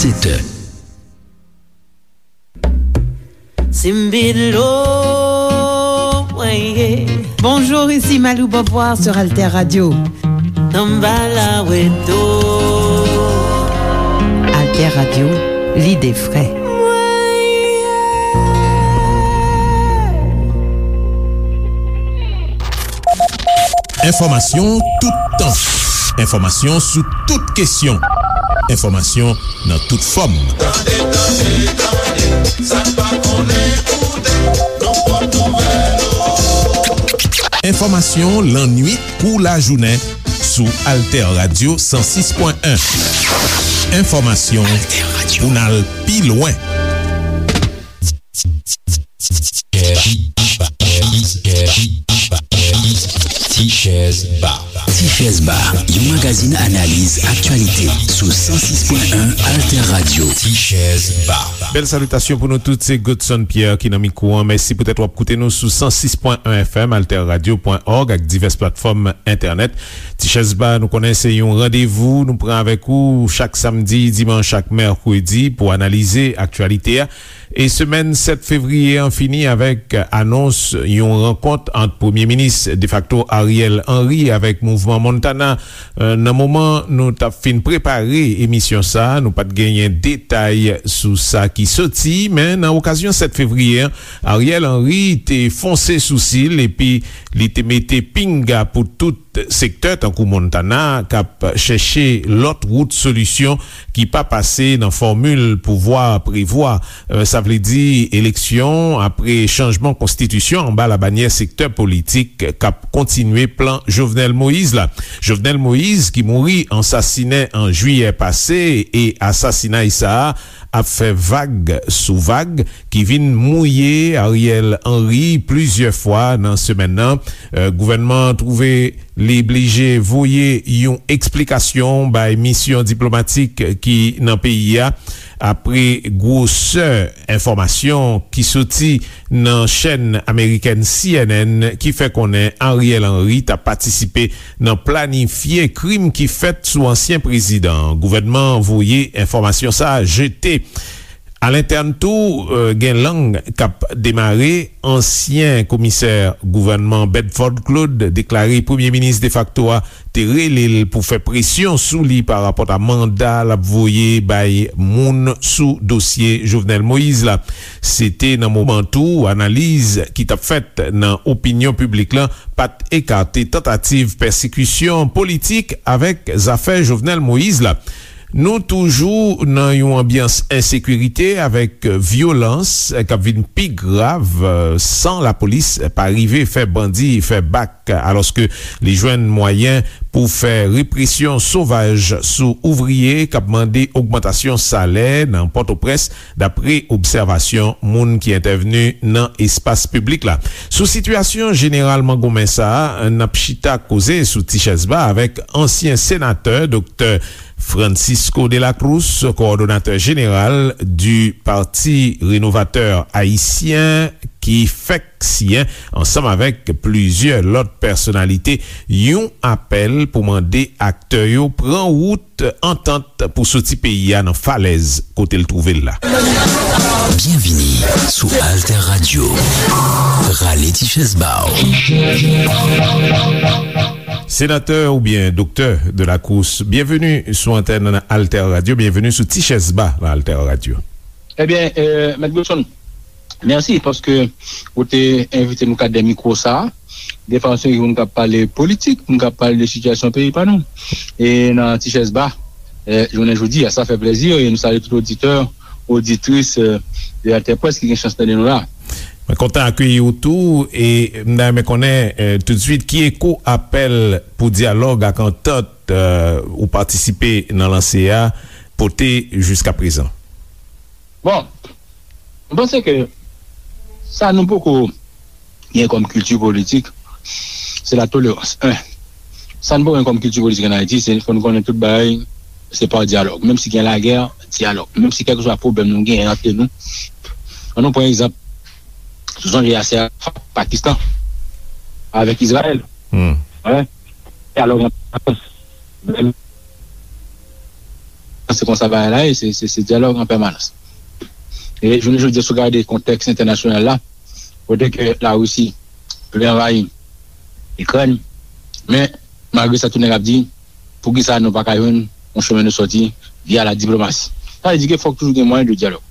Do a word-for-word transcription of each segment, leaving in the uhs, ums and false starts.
Sèt è. Simbilo, weye. Bonjour, ici Malou Beauvoir sur Alter Radio. Samba la weto. Alter Radio, l'idée frais. Enfòmasyon toutan. Enfòmasyon sou tout kesyon. Enfòmasyon nan tout fòm. Tande, tande, tande, sa n pa konnen koute, nan pòt nouvèl. Enfòmasyon lannwit kou lajounen sou Alter Radio san sis pwen en. Enfòmasyon pou n al pi lwen. Tichèz Ba. Tichèz Ba, yon magazin analiz aktyalite sou san sis pwen en Alter Radio. Tichèz Ba. Bèl salitasyon pou nou tout, se Godson Pierre ki nan mikwo an. Mèsi poutèt w ap koute nou sou san sis pwen en F M, alter radio pwen org ak divès platfòm entènèt. Tichèz Ba, nou konnen se yon randevou nou pran avèk ou chak samdi, dimanch ak mèkredi pou analize aktyalite a. E semèn sèt fevriye an fini avèk anons yon rankont ant Premye Minis defakto Ariel Henry avèk Mouvman Montana. Eh, nan moman nou t ap fin prepare emisyon sa a, nou pa t genyen detay sou sa ki soti, men nan okazyon sèt fevriye an, Ariel Henry te fonse sousi l epi li te mete pinga pou tout sektè tankou Montana k ap chèche lòt wout solisyon ki pa pase nan fòmil pouvwa prevwa. Eh, sa vle di eleksyon apre chanjman konstitisyon anba labanyè sektè politik k ap kontinye plan Jovenel Moïse la. Jovenel Moïse ki mouri an sasinen an jiyè pase e asasinay sa a ap fè vag sou vag ki vin mouye Ariel Henry plizyè fwa nan semèn nan. Eh, gouvènman an twouve li blije voye yon eksplikasyon bay misyon diplomatik ki nan peyi a, apre gwosè enfòmasyon ki soti nan chèn amerikèn C N N ki fè konnen Ariel Henry t ap patisipe nan planifye krim ki fèt sou ansyen prezidan an. Gouvènman an voye enfòmasyon sa a jete. Alentèn tou, eh, gen lang k ap demare. Ansyen komisè gouvènman Bedford Claude deklare premye minis defakto a te rele l pou fè presyon sou li parapòt a manda l ap voye bay moun sou dosye Jovenel Moïse la. Se te nan moman tou analiz ki t ap fèt nan opinyon piblik lan pa t ekate tantativ pèsekisyon politik avèk zafè Jovenel Moïse la. Nou toujou nan yon anbyans ensekirite avèk vyolans k ap vin pi grav, eh, san lapolis pa rive fè bandi fè bak, alòske li jwenn mwayen pou fè represyon sovaj sou ouvriye k ap mande ogmantasyon salè nan Pòtoprens, dapre obsèvasyon moun ki entèvni nan espas piblik la. Sou sitiyasyon jeneral mangonmen sa a, n ap chita koze sou Tichèz Ba avèk ansyen senatè, Doktè Francisco de la Cruz, kowòdonatè jeneral di Pati Renovatè Ayisyen, ki fèk siyen, ansanm avèk plizyè lòt pèsonalite, yon apèl pou mande aktè yo pran wout antant pou soti peyi a nan falèz kote l twouve l la. Byenvini sou Alter Radio. Rale ti chèz ba w. Senatè oubyen Doktè de la Cruz, byenveni sou antèn Alter Radio, byenveni sou Ti Chèz Ba nan Alter Radio. Ebyen, eh, Mèt Godson, mèsi paske ou te envite nou kat de mikwo sa a. Defwa se moun k ap pale politik, moun k ap pale de sitiyasyon peyi pa nou. E nan Ti Chèz Ba, eh, jounen jodi a, sa fè plezi e nou salye tout oditè, oditris, eh, de Alter Presse ki gen chans tande nou la. Mwen kontan akeyi w tou e m ta renmen konnen, eh, toutswit ki eko apèl pou dyalòg ak antant, eh, ou patisipe nan lanse a pote jiska prezan. Bon, mwen panse ke sa nou poko gen kòm kilti politik, se la tolerans. En, sa nou poko gen kòm kilti politik ann Ayiti, se fò nou konnen tout bagay se pa dyalòg. Menm si gen lagè, dyalòg. Menm si kèlkeswa pwoblèm nou gen antre nou. Ann nou pran egzanp, sou sonje asè a Pakistan avèk Izrayèl. Hmm. Dyalòg ant Lafrans, menm se konsa bagay la ye, se, se, se dyalòg an pèmanans. E jounen jodi a, si w gade kontèks entènasyonal la, kote ke Larisi vle anvayi Ikrèn, men malgre sa, tout nèg ap di, poukisa nou pa ka jwenn yon chemin de sortie via la diplomasi? Sa vle di ke fòk toujou gen mwayen de dyalòg.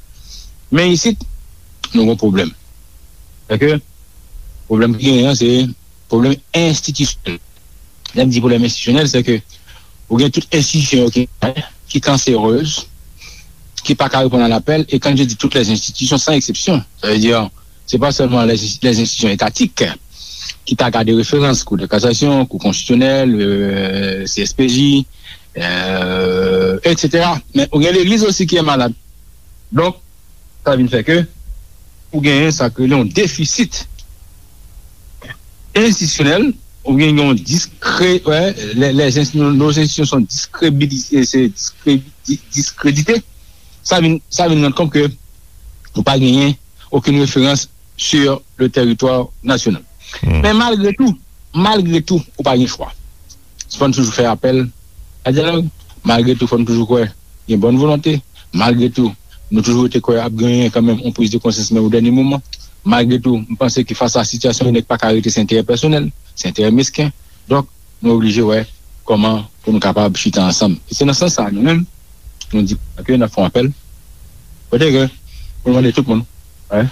Men isit, nou gen pwoblèm. Se ke pwoblèm ki genyen an, se pwoblèm enstitisyonèl. Lè m di pwoblèm enstitisyonèl, se ke ou gen tout enstitisyon yo ki, ki kanserez, ki pa ka reponn a lapèl, e quand je dis toutes les institutions, sans exception, sa vle di, se pa sèlman les, les institutions étatiques ki ta gade referans, Kou de kasasyon, Kou konstitisyonèl, euh, C S P J, euh, et cetera. Men ou gen legliz osi ki malad. Donk, sa vin fè ke ou genyen sa k rele yon defisit enstitisyonèl, ou gen yon diskrè, wè, les, les, nos institutions sont discrédibilisées, c'est discrédi-, discrédité. Sa vin, sa vin rann kont ke nou pa genyen okenn referans sur le territoire national. Men malgre tou, malgre tou, ou pa gen chwa. Fò n toujou fè apèl a dyalòg. Malgre tou, fò n toujou kwè gen bòn volonte. Malgre tou, nou toujou rete kwè ap genyen kanmenm yon priz de konsyans, men o dènye moman. Malgre tou, m panse ke fas a sitiyasyon, nèg pa ka rete se enterè pèsonèl, se enterè mesken. Donk, nou oblije wè kòman pou nou kapab chita ansanm. E se nan sans sa, nou menm, nou di ke n ap fè yon apèl. Kote ke pou nou mande tout moun, wè,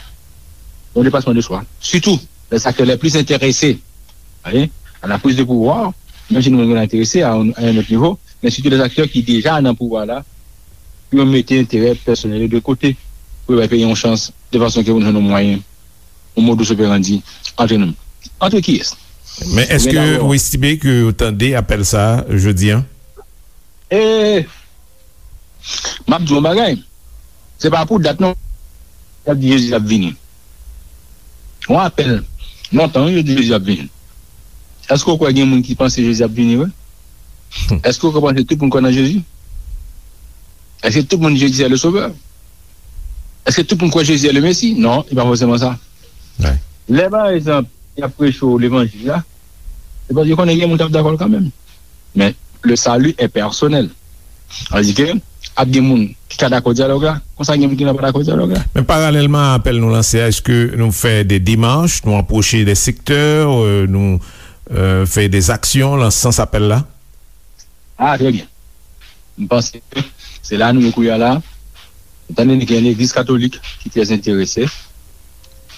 yon depasman de swa. Sitou, les acteurs les plus intéressés, wè, à la prise de pouvoir, menm si nou menm nou enterese a, a yon lòt nivo, men sitou les acteurs ki deja nan pouvwa la, pou yo mete enterè pèsonèl yo de kote, pou yo bay peyi yon chans, de fason ke pou nou jwenn yon mwayen, yon modus operandi antre nou. Antre kiyès? Men èske ou estime ke yo tande apèl sa a jodi a? E, m ap di w yon bagay. Se pa pou dat non. Y ap di Jezi ap vini. Yon apèl. Lontan, wi, yo di Jezi ap vini. Èske w kwè gen moun ki panse Jezi ap vini vre? Èske w kwè panse tout moun kwè nan Jezi? Èske tout moun Jezi se le Sovè? Èske tout moun kwè Jezi se le Mesi? Non, e pa fòseman sa. Lè, pa egzanp, y ap preche w levanjil la, se paske yo konnen gen moun k ap dakò l kanmenm. Men, le salut est personnel. Sa vle di ke ap gen moun ki ka dakò dyalòg la, konsa gen moun ki pa dakò dyalòg la. Men paralèlman a apèl nou lanse a, èske nou fè de demach, nou apwoche de sektè, euh, nou, euh, fè de zaksyon nan sans apèl la? Ah, très bien. M panse ke se la nou ye kounye a la. Ou tande gen legliz katolik ki trè enterese,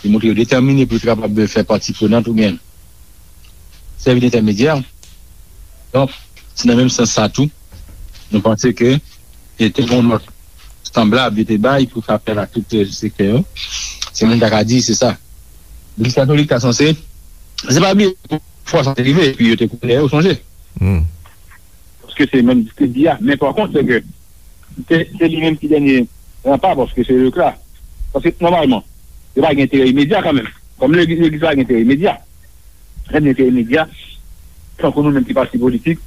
ki montre yo detèmine pou yo te kapab fè pati prenant oubyen sèvi d entèmedyè. Donk, se nan menm sans sa tou, nou panse ke e te gen yon nòt sanblab yo te bay pou fè apèl a tout, euh, sektè yo. Se moun ta ka di, se sa. Legliz katolik ta sanse, se pa bliye fwa sa te rive, epi yo te koule, ou sonje? Paske se menm distribye a. Men pa kont, se ke se, se li menm ki dènye ranpa, paske se lekla. Paske nòmalman, yo pa gen enterè imedya kanmenm. Kòm legliz, legliz pa gen enterè imedya. Lè gen enterè imedya, tankou nou menm ki pati politik,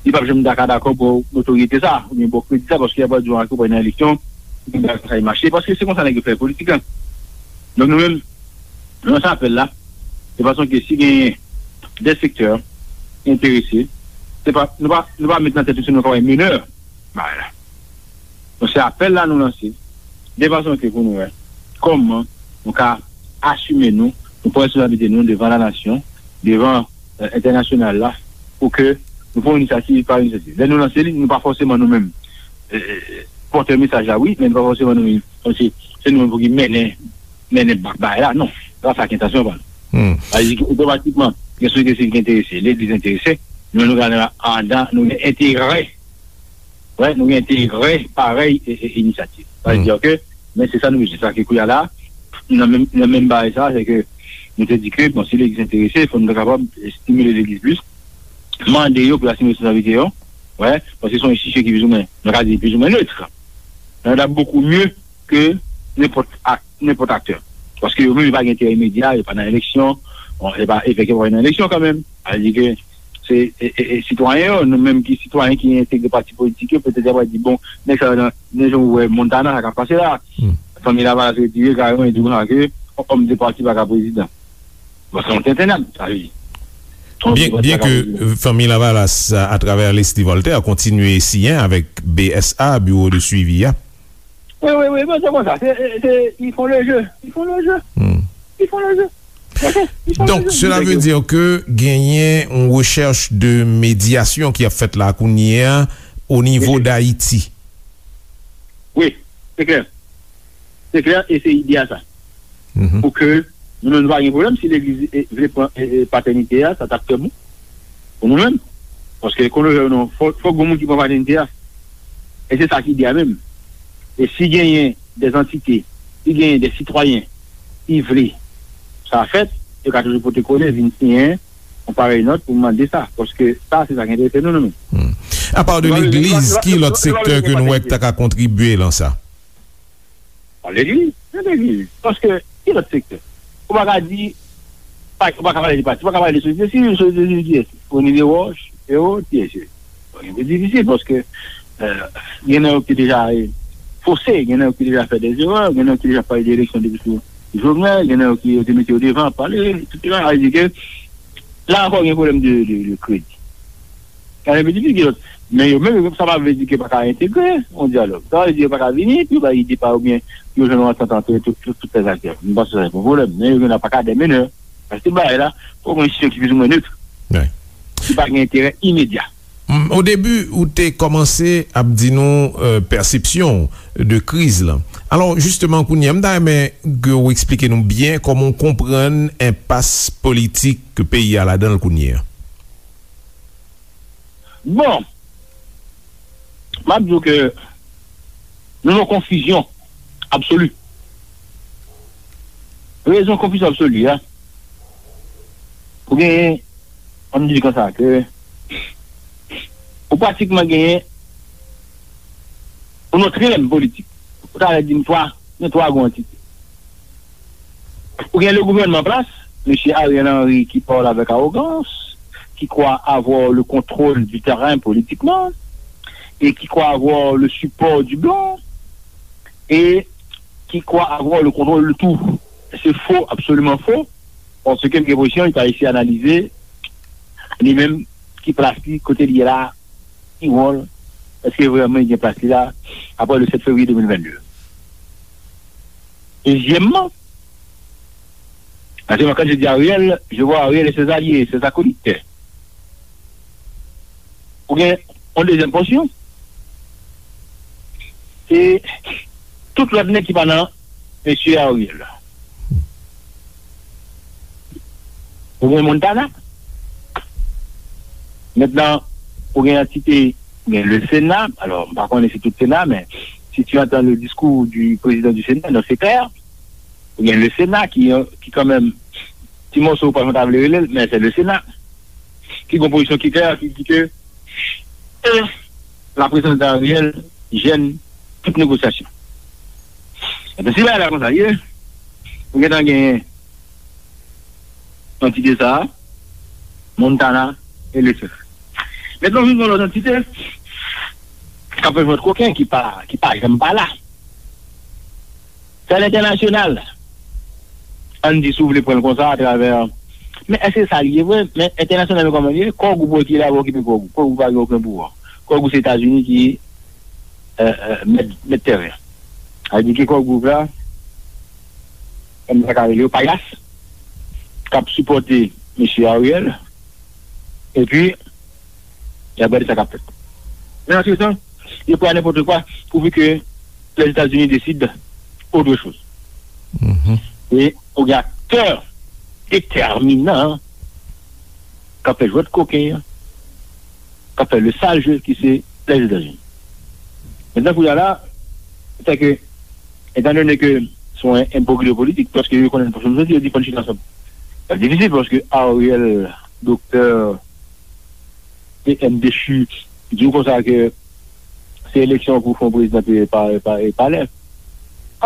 li p ap janm ta ka dakò pou notoryete sa, oubyen pou kredi sa, paske y ap di w ke w pral nan eleksyon, pou bagay sa mache, paske se konsa nèg yo fè politik la. Donk nou menm, nou lanse apèl la, de fason ke si genyen de sektè enterese, se pa, nou pa, nou pa met nan tèt nou se nou ka bay menè bagay la. Donk, se apèl la nou lanse, de fason ke pou nou wè kòman nou ka asime nou, nou pran responsablite nou devan lanasyon, devan, euh, entènasyonal la, pou ke nou pran inisyativ pa inisyativ. Lè nou lanse li, nou pa fòseman nou menm, euh, euh, pòtè mesaj la, wi, men nou pa fòseman nou menm, kòmsi se nou menm pou ki mennen, mennen ba-, bagay la, non. Se pa sa ki entansyon pa nou. Sa vle di ke otomatikman, gen sosyete sivil ki enterese, legliz enterese, nou, nou gen andan, nou gen enterè Wè, nou gen enterè parèy e, e inisyativ. Sa vle di ke, men se sa nou bezwen. Sa ke kounye a la, nan menm, nan menm bagay sa, se ke nou te di ke, bon, si legliz enterese, fò nou ta kapab estimile legliz plis, mande yo pou y asime responsablite yo, wè, paske se yon enstitisyon ki plizoumwen, nou ka di plizoumwen nèt. Nan ta bokou mye ke nenpòt ak-, nenpòt aktè. Paske yo menm, yo pa gen enterè imedya, yo pa nan eleksyon, bon, e pa, e fèk yo pa nan eleksyon kanmenm. Sa vle di ke se, e, e, e, sitwayen yo, nou menm ki sitwayen ki entegre pati politik yo, petèt y ap di, bon, nèg sa yo nan, nan jan ou wè Montana, sa k ap pase la. Fanmi Lavalas retire kareman, e di konsa ke òm de pati pa ka prezidan. Bon, se yon tenten nèt, sa vle di. Bien, bien que euh, Fanmi Lavalas, à travers Leslie Voltaire, continue siyen avec B S A, Bureau de Suivi, hein. Oui, oui, oui, mais c'est comme ça. C'est, c'est, ils font le jeu. Ils font le jeu. Hmm. Ils font le jeu. Donk, sela vle di ke genyen yon rechèch de medyasyon ki ap fèt la kounye a o nivo d Ayiti. Wi, se klè. Se klè, e se ide a sa. Pou ke nou menm nou pa gen pwoblèm si legliz vle pran patènite a, sa t ap trè bon pou nou menm. Paske, konnen nou, fòk gon moun ki pran patènite a. E se sa ki ide a menm. E si genyen de antite, si genyen de sitwayen ki vle sa fèt, yo ka toujou pote kole, vin siyen yon parèy nòt pou mande sa. Paske sa, se sa ki enterese nou, nou menm. Apa de legliz, ki lòt sektè ke nou wè k ta ka kontribye lan sa? Legliz, se legliz. Paske, ki lòt sektè? Ou pa ka di, ou pa ka pale de pati, ou pa ka pale de sosyete sivil, sosyete sivil kiyès? Rony Desroches, Ero, kiyès? Bon, se difisil paske gen nan yo ki deja fose, gen nan yo ki deja fè dezerè, gen nan yo ki deja pale de eleksyon depi sou Jovenel, gen nan yo ki yo te mete yo devan ap pale, etsetera. Sa vle di ke la ankò gen pwoblèm de, de, de kredi. Sa vle di ki lòt. Men yo menm, sa pa vle di ke pa ka entegre yon dyalòg. Sa vle di yo pa ka vini, pou yo bay ide pa yo oubyen pou yo jwenn yon antant antre tout, tout, tout lèzaktè. M panse sa se pa yon pwoblèm. Men yo gen nan pa ka de menè. Paske bagay la, fòk yon enstitisyon ki plizoumwen net. Ki pa gen enterè imedya. O debi, ou te kòmanse ap di nou pèsepsyon w de kriz lan. Alò, jisteman, kounye a, m ta renmen ke w eksplike nou byen kòman w konprann enpas politik ke peyi a ladan l kounye a. Bon, m ap di w ke nou nan konfizyon absoli. Rezon konfizyon absoli a, ou genyen, ann di l konsa, ke ou pratikman genyen yon trilèm politik. Ou ta di m twa, gen twa gwo antite. Ou gen le gouvènman an plas, mesye Ariel Henry ki pale avèk awogans, ki kwè avoir le contrôle du terrain politiquement, et qui croit avoir le support du blanc, et qui croit avoir le contrôle de tout. Se fo, absoliman fo, paske m gen enpresyon li pa eseye analize li menm ki plas li, kote li ye la, ki wòl, èske vrèman li gen plas li la apre le sèt fevriye de mil vennde? Dezyèmman, paske mwen, quand je dis Ariel, je vois Ariel et ses alliés, ses acolytes. Ou gen yon dezyèm pòsyon, se tout lòt nèg ki pa nan mesye Ariel la. Ou gen Montana. Mentnan, ou gen antite, ou gen le Sena. Alò, m pa konnen si tout Sena, men si tu entends le discours du président du Sénat, donc c'est clair. Ou gen le Sena ki, ki kanmenm, ti mòso ou pa janm ta vle rele l, men se le Sena. Ki gen pozisyon ki klè, ki di ke la prezans de Ariel jèn tout negosyasyon. Ebyen, si bagay la konsa ye, ou gentan genyen antite sa a, Montana e Lefebvre. Mentnan, vin yon lòt antite k ap fè jwèt koken ki pa, ki pa janm pa la. Sa lentènasyonal. Ann di, si w vle pran l konsa, atravè. Men èske sa l ye vre? Men entènasyonal yo kòman l ye? Kò gwoup ki la pou okipe kò gwoup. Kò gwoup pa gen okenn pouvwa. Kò gwoup se Etazini ki mèt, mèt tèren. Sa vle di ke kò gwoup la, kòm sa ka rele yo, payas, k ap sipòte mesye Ariel, epi y ap gade sa k ap fèt. Men antretan, yo prè a nenpòt kwa, pouvi ke Lèzetazini deside otre choz. E ou gen aktè detèminan k ap fè jwèt koken an, k ap fè le sal je ki se Lèzetazini. Mentnan, kounye a la, se ke, etandone ke se yon enbroglyo politik, paske yo konnen pou yo di, yo di fò n chita ansanm. Sa difisil paske Ariel, doktè, P M dechu, di w konsa ke se eleksyon pou fè yon prezidan e pa, e pa, e palè.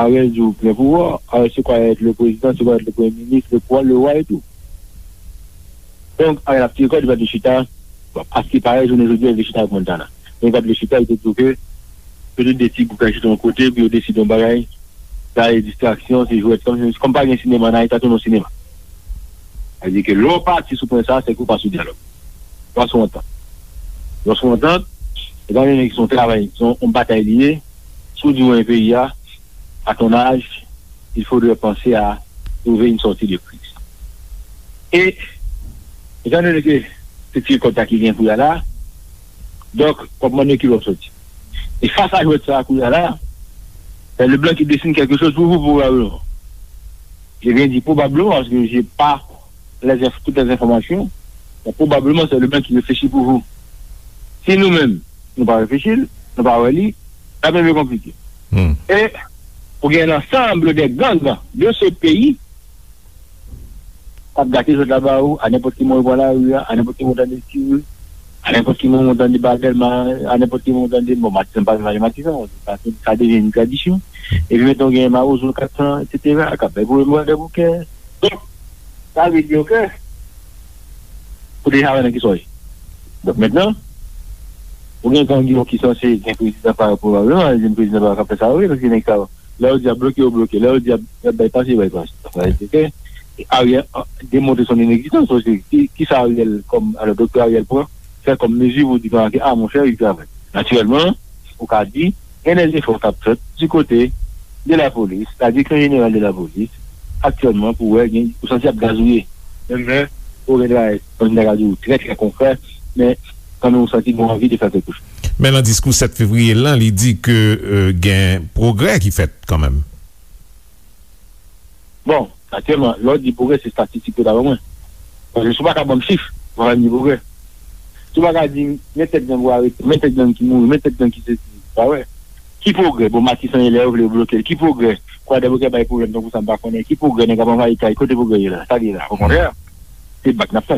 Ariel di w plen pouvwa. Ariel se kwa èt le prezidan, se kwa èt le premye minis, le kwa, le wa e tou. Donk, Ariel ap tire kòd, li pa t vle chita. Bon, aske parèy, jounen jodi a, li vle chita avèk Montana. Men li pa t vle chita, li te di w ke se tout de ti gwoup k al chita yon kote pou yo deside yon bagay. Sa e distraksyon, se jwèt. Kòm, kòm pa gen sinema, nan Ayiti, sa tounen yon sinema. Sa vle di ke lè w pati sou pwen sa a, se ke w pa sou dyalòg. W pa sou antant. Lè w sou antant, etan done ke se yon travay, se yon, yon batay li ye, si w di w renmen peyi a, à ton âge, il faudrait penser à trouver une sortie de crise. E, etan done ke se ti rèkòt la ki gen kounye a la, donk, w ap mande ki lè w soti. E fas a jwèt sa a kounye a la, c'est le blanc qui dessine quelque chose pour vous, probablement. Je viens dire probablement parce que j'ai pas les inf- toutes les informations, mais probablement c'est le blanc qui réfléchit pour vous. Si nou menm, nou pa reflechi l, nou pa wè li, l ap vin pi konplike. E pou gen l'ensemble des gangs de ce pays k ap gate jwèt la ba ou, a nenpòt ki moman ou pran lari a, a nenpòt ki moman ou tande tire, a nenpòt ki moman ou tande batèl, a nenpòt ki moman ou tande, bon, Matisan pa vin pale Matisan, sa, sa devyen yon tradisyon. Epi mentnan ou gen mawozo kat san, etsetera, k ap bay pwoblèm bò de boukè. Donk, sa vle di, oke, ou deja wè nan ki sa w ye. Donk, mentnan, ou gen gang yo ki sanse gen prezidan pa yo, pwobableman, gen prezidan pa yo k ap fè sa yo vre, paske nèg sa yo, lè yo di y ap bloke, yo bloke. Lè yo di y ap, y ap bay pase, yo bay pase. Donk, sa vle di ke Ariel, a, demontre son inegzistans osi. Ki, ki sa Ariel, kòm, alò, doktè Ariel pran, fè kòm mezi pou di, ke, a, monchè, li travay. Natirèlman, ou ka di, gen dè zefò k ap fèt di kote de lapolis, la direksyon jeneral de lapolis, aktyèlman, pou wè, gen, ou santi y ap gazouye. Menm lè, ou gen travay, kòm m ta ka di w, trè, trè konkrè, men kanmenm ou santi gen anvi de fè kèlkechoz. Men nan diskou sèt fevriye lan, li di ke, euh, gen pwogrè ki fèt kanmenm. Bon, aktyèlman, lè w di pwogrè, se estatistik yo ta ban mwen. Paske si w pa ka ban m chif, ou pa ka di pwogrè. Si w pa ka di m, men tèt gang ou arete, men tèt gang ki mouri, men tèt gang ki sesi, pa wè. Ki pwogrè? Bon, Matisan ye lè yo vle yo bloke l. Ki pwogrè? Kwadèboukè bay pwoblèm tankou sa m pa konnen. Ki pwogrè? Nèg ap anvayi kay, kote pwogrè ye la? Sa l ye la? Okontrè, se bak n ap fè.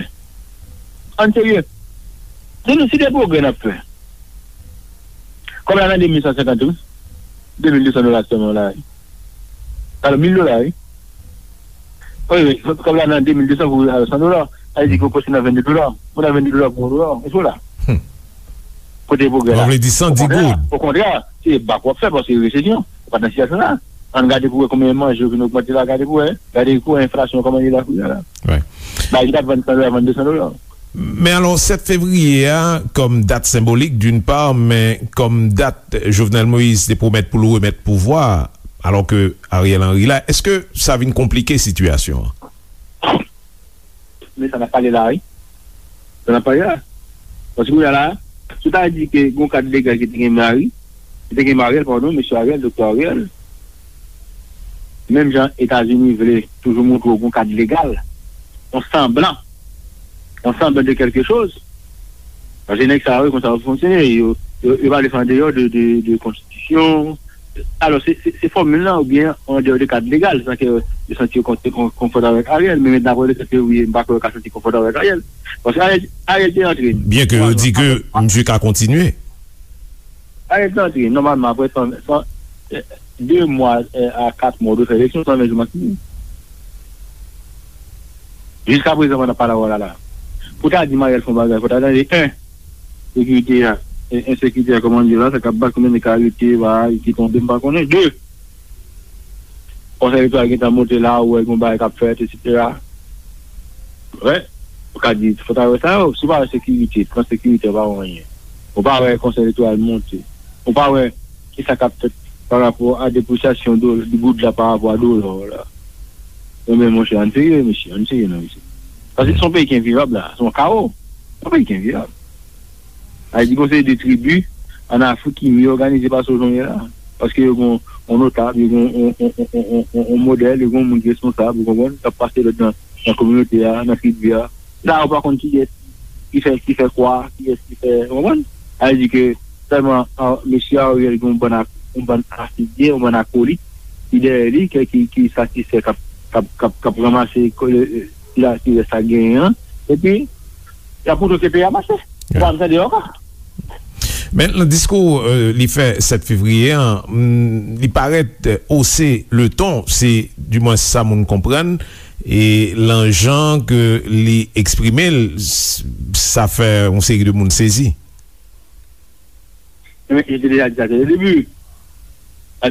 Ann serye. Si nou, si de pwogrè n ap fè, kòb la nan de mil san senkant wi. De mil de san dola sèlman la wi. Alò, mil dola wi. Wi, wi, kòb la nan de mil de san pou al san dola. Sa vle di ke w pase nan vennde dola. Ou nan vennde dola pou yon dola. Èske w la? Kote pwogrè la? Donk, vle di san di goud. Okontrè, se bak w ap fè paske resesyon. Ou pa t nan sitiyasyon sa. Ann gade pou wè konbyen manje yo vin ogmante la, gade pou wè. Gade kou enflasyon kòman li la kounye a la. Bagay ki t ap vann san dola, vann de san dola. Men alò, sèt fevriye a, kòm dat senbolik, d'une part, men kòm dat Jovenel Moïse te pwomèt pou l remèt pouvwa, alò ke Ariel Henry la, èske sa vin konplike sitiyasyon an? Men sa n ap pale la, wi. Sa n ap pale la. Paske kounye a la, si w ta di ke gen yon kad legal ki te gen Mari, ki te gen Mariel, padon, mesye Ariel, doktè Ariel, menm jan Etazini vle toujou montre w gen yon kad legal, yon sanblan, yon sanblan de kèlkechoz, paske nèg sa yo, konsa yo fonksyone, yo, yo, yo pa vle fè andeyò de, de, de konstitisyon, Alò, se, se, se fòmil lan oubyen andeyò de kad legal, san ke yo santi yo kon-, kon-, konfòtab avèk Ariel, men mentnan apre le sèt fevriye, m pa kwè yo ka santi konfòtab avèk Ariel. Paske Ariel, Ariel te antre. Byen ke yo di ke misye ka kontinye. Ariel te antre, nòmalman, apre san, san, eh, de mwa, eh, a kat mwa, ou dwe fè eleksyon, san ven jou maksimòm. Jiskaprezan, pandan pale a w la la, pou ta di Mariel fè yon bagay, fò ta tande, en, sekirite a, e, ensekirite a, kòman l ye la, sa k ap bat, konbyen nèg k arete, bagay ki tonbe, m pa konnen. De, konsèy elektoral gentan monte la, ou wè gen bagay k ap fèt, etsetera. Wè, ou ka di, fò ta wè sa yo, si w pa wè sekirite, plan sekirite, ou pa wè anyen. Ou pa wè konsèy elektoral monte. Ou pa wè kisa k ap fèt pa rapò a depresyasyon do-, di goud la pa rapò a dola la. Ebyen, monchè, ann serye, mesye, ann serye non, mesye. Paske se yon peyi ki envivab la, se yon kawo. Se yon peyi ki envivab. Sa vle di, gon seri de tribi ann Afrik ki mye òganize pase w jan w ye la. Paske yo gon, yon notab, yo gon yon, yon, yon modèl, yo gon moun ki responsab, ou konprann, k ap pase lòd nan, nan kominote a, nan tribi a. La, ou pa konn kiyès ki fè, ki fè kwa, kiyès ki fè, ou konprann? Sa vle di ke sèlman, a, mesye Ariel gen yon bann ak-, yon bann afilye, yon bann akolit ki dèyè li, ki, ki, ki satisfè k ap, k ap, k ap, k ap ranmase ko-, e, e, sila ki rès ak genyen an. Epi, y ap montre w ke peyi a mache. Ou pa janm tande yo ankò. Men nan diskou, euh, li fè sèt fevriye an, mm, li parèt, euh, haussé le ton, se dimwens sa moun konprann, e lan jan ke li eksprime l, s-, sa fè yon seri de moun sezi. Men, je te deja di sa dès le début.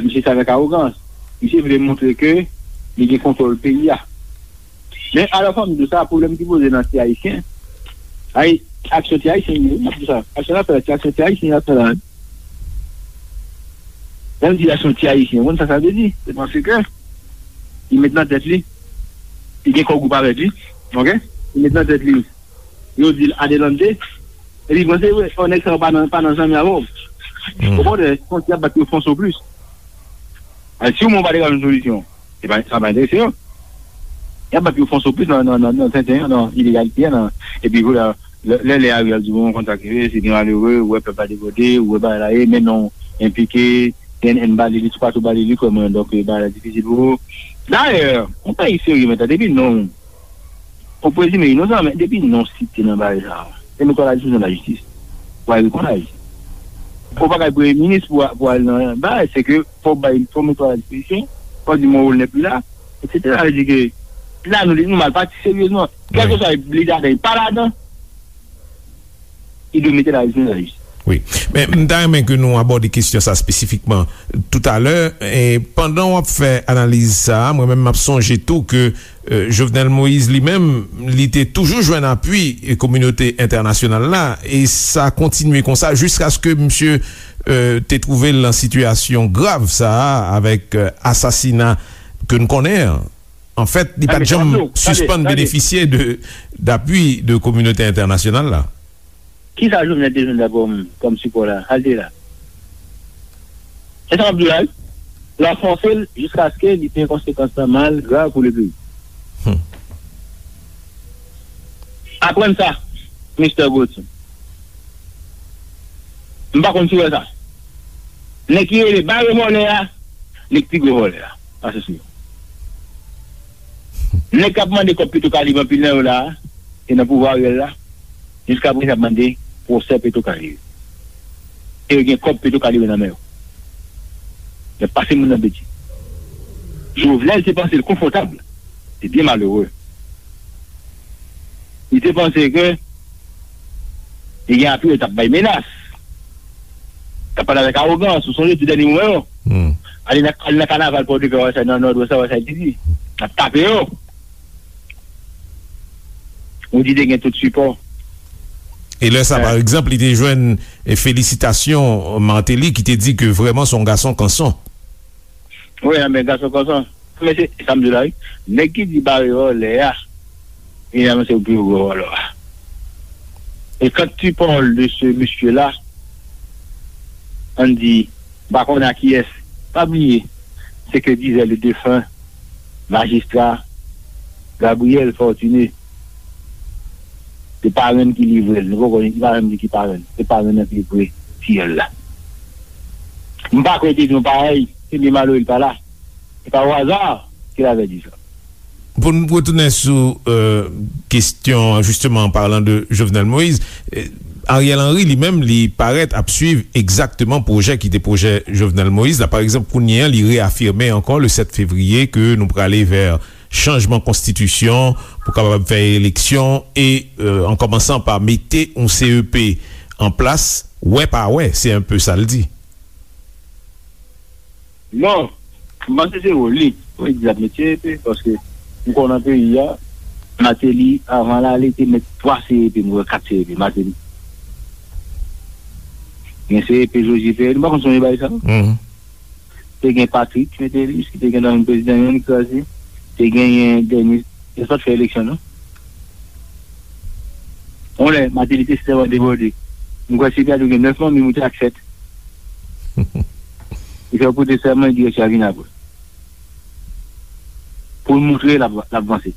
Misye sa avèk awogans. Misye vle montre ke li gen kontwòl peyi a. Men alò fò m di w sa, pwoblèm ki poze nan ti Ayisyen. Ay, aksyon ti Ayisyen li ye, wi, m ap di w sa. Aksyon l ap fè la, ti aksyon ti Ayisyen l ap fè la. Lè m di aksyon ti Ayisyen, ou konn sa sa vle di? Se paske li met nan tèt li, li gen kò gwoup avèk li, oke? Li met nan tèt li, yo di l adelante, epi panse, wi, o nèg sa yo pa nan, pa nan zanmi avè w. Okontrè, se konsi y ap bat pou yo fè yon soplis. Ay, si w menm ou pa te ka jwenn solisyon, se pa, sa pa enterese yo. Y ap bat pou yo fè yon soplis nan, nan, nan, nan tenten an, nan ilegalite an, nan, epi vre, lè, lè, lè Ariel di, bon, konn sa k rive, se de malere, ou wè pèp la debòde, ou wè bagay la ye, men non, enplike, N N ba li, li toupatou ba li, li kwè mwen, donk, bagay la difisil pou ou. Dayè, yon peyi serye, men tande, depi non, ou prezime inosan, men depi non site nan bagay sa a, se nou kwè la dispozisyon de la jistis. Pou al reponn a jistis. Ou pa ka premye minis pou, pou al nan bagay, se ke fò w bay, fò w mete a la dispozisyon, fò w di mwen ou l nèp li la, etsetera. Sa vle di ke la nou, nou mal pati seryezman. Kèlkeswa li ladan, li pa ladan, li dwe mete la jistis nan la jistis. Wi. Men m ta renmen ke nou abòde kesyon sa espesifikman toutalè. E pandan w ap fè analiz sa a, mwen menm m ap sonje tou ke, e, Jovenel Moïse li menm, li te toujou jwenn apui, e, kominote entènasyonal la, e sa kontinye konsa jiskaske misye, e, te twouve l nan sitiyasyon grav sa a avèk, e, asasina ke n konnen an. Anfèt, li pa t janm sispann benefisye de, dapui de kominote entènasyonal la. Kisa Jovenel te jwenn la kòm, kòm sipò la? Al te la. Se sa m ap di w la, wi. L ap fòse l jiskaske li fè konsekans lan mal, grav pou le peyi. Hmm. Aprann sa, Mister Gauthier. M pa konn si w wè sa. Nèg ki rele bare vòlè a, li k pi gwo vòlè a. Pase sou yo. Nèg k ap mande kòb Petro Caribe anpil nan yo la a, e nan pouvwa Ariel la, jiskaprezan y ap mande pwosè Petro Caribe. E yo gen kòb Petro Caribe nan men yo. Y ap pase moun nan betiz. Jovenel te panse l konfòtab. Se byen malere. Li te panse ke li gen apui, li t ap bay menas. T ap pale avèk awogans, ou sonje tou dènye moman yo. Hmm. Ale nan, ale nan kanaval Pòdepè, wè sa nan Nòdwès la, wè sa li te di. N ap tape yo. Ou di te gen tout sipò. E lè sa, pa egzanp, li te jwenn, e, felisitasyon Martelly ki te di ke vrèman se yon gason kanson. Wi, men gason kanson. Men se sa m di w la, wi. Nèg ki di bare vòlè a, li menm se pi gwo vòlè a. Et quand tu parles de ce monsieur-là, on dit, m pa konnen a kiyès, pa bliye, se ke dizè le defen majistra Gabriel Fortuné, se parenn ki livre l. Nou poko, li pa menm di ki parenn. Se parenn nan ki livre fiyèl la. M pa kwè te di yon parèy, se byen malere l pa la. Se pa o aza ke l avè di sa. Pou n retounen sou, euh, kesyon, justement, en parlant de Jovenel Moïse, euh, Ariel Henry, li menm, li parèt ap swiv egzakteman pwojè ki te pwojè Jovenel Moïse la. Pa egzanp, kounye a, li reafime ankò le sèt fevriye ke nou prale vè chanjman konstitisyon, pou kapab fè eleksyon, e, euh, an kòmansan pa mete yon C E P an plas, wè pa wè, se un peu sa l di. Non, m panse se wòl li. Wi, di l ap met C E P, paske m konnen nan peyi a, Martelly, avan l ale, te met twa C E P, m kwè kat C E P, Martelly. Gen C E P Joseph Ferré, nou pa konn sonje bagay sa? Mhm. Te gen Patrick Métayer, ki te gen nan prezidan, li kraze. Te genyen dènye, yo pa t fè eleksyon, non. On lè, Martelly te sèman debòde. M kwè se gade gen nèf manmi moute ak sèt. Li fè pote sèman, direksyon a vin apre. Pou l montre l ap, l ap vanse.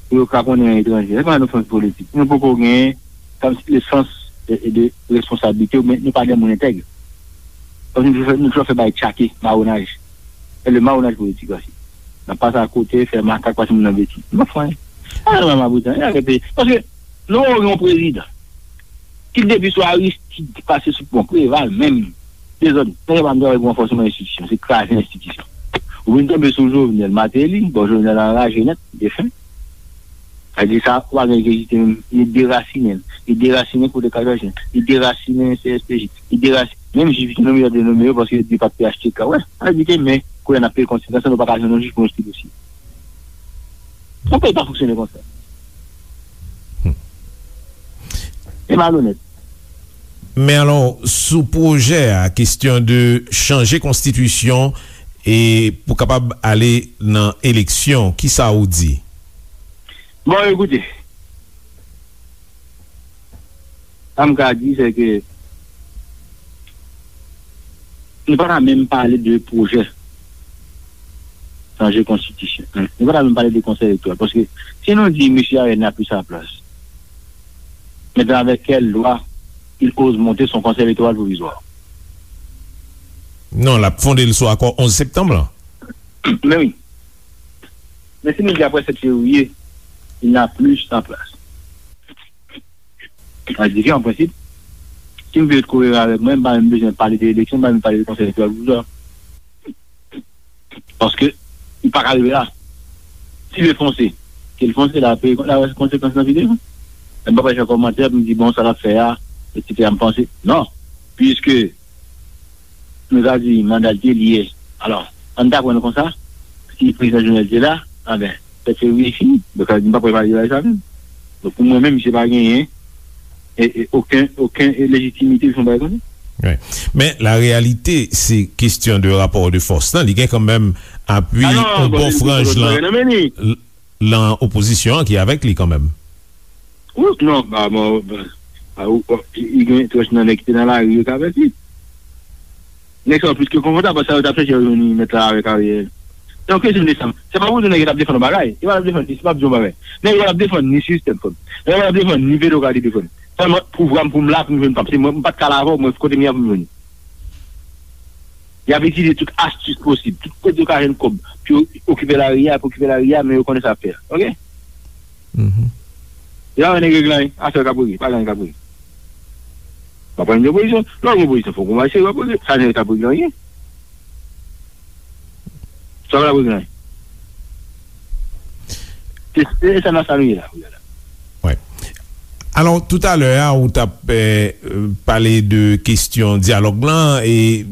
Pou yo ka konnen etranje. Se pa yon ofans politik. Nou poko gen, kòmsi, le sans de, de responsablite, men nou pa de moun entèg. Kòmsi nou fè, nou fè bay tchake, mawonaj. E le mawonaj politik osi. N ap pase akote, fè makak, pase moun nan betiz. Nou pa fè anyen. A, non, maboutan, e arete. Paske, nou gen yon prezidan ki depi sou Aristide pase sou pon Preval menm, dezòd. Nèg yo pa menm travay pou ranfòsman enstitisyon, se kraze enstitisyon. Ou vin tonbe sou Jovenel Martelly, bon, Jovenel anraje nèt, defen. Sa di sa, ou pa gen kite menm, li derasinen, li derasinen kote Kazajen, li derasinen C S P J, li derasinen, menm jij ki te nonmen yo, te nonmen yo paske yo di pa t P H T K, wè, sa di ke men, kounye a n ap peye konsekans, nou pa ka jwenn yon jij pou yon stil osi. Yon peyi pa fonksyone konsa. Se malonèt. Men alò, sou pwojè a, kesyon de chanje konstitisyon e pou kapab ale nan eleksyon, kisa ou di? Bon, ekoute, sa m ka di, se ke nou pa ta menm pale de pwojè chanje konstitisyon. Nou pa ta menm pale de konsèy elektoral. Paske si nou di mesye Ariel n'a plus sa place, maintenant avec quelle loi il ose monter son conseil électoral provisoire? Non, l ap fonde l sou akò onz septanm lan. Men wi. Men si nou di apre sèt fevriye, il n'a plus sa place. Sa di ke an prensip, si m vle kore avèk mwen, m pa menm bezwen pale de eleksyon, m pa menm pale de konsèy elektoral pou sa. Paske, li pa ka rive la. Si l fonse, ke l fonse, l ap peye, l ap wè konsekans nan videyo. M pa pral fè kòmantè pou m di, bon, sa l ap fè a, etsetera, m panse. Non. Piske, nou ka di manda l te li ye. Alò, ann ta pran l konsa, si prezidan Jovenel te la, anben, sèt fevriye fini. Donk, sa vle di m pa pral pale de bagay sa menm. Donk, pou mwen menm, misye pa genyen e, e, okenn, okenn, e, lejitimite pou fè yon bagay konsa. Wi. Men, la reyalite, se kesyon de rapò de fòs lan. Li gen kanmenm apui yon bon franj lan. Lan opozisyon an ki avèk li kanmenm. Wi, non, ba, bon, ba, ba, ou, ou, li gen twòch nan nèg ki te nan lari yo k avèk li. Nèg sa yo plis ke konfòtab, paske sa yo t ap chèche yo jwenn li nèt la avèk Ariel. Se yon kesyon de sa. Se pa pou di nèg yo t ap defann yon bagay. Yo pa t ap defann ni, se pa pou di yon bagay. Nèg yo pa t ap defann ni sistèm, frè m. Nèg yo pa t ap defann ni petwo k ap defann. Sèlman, pouvwa m pou m la pou m jwenn pa m. Se mwen, m pa t ka la avè w, mwen, kote m ye a pou m jwenn li. Y ap itilize tout astis posib, tout kote yo ka jwenn kòb, pou yo okipe lari a, pou okipe lari a, men yo konnen sa y ap fè a. Oke? Mhm. Yo pa wè nèg regle anyen, afè yo k ap regle, pa gen anyen k ap regle. W ap pran yon opozisyon, lè w gen opozisyon, fòk ou mache, w ap regle, sa nèg yo t ap regle anyen. Sa pa t ap regle anyen. Se, se sa nan sa nou ye la, kounye a la. Wi. Alò, toutalè a, ou t ap, eh, pale de kesyon dyalòg lan e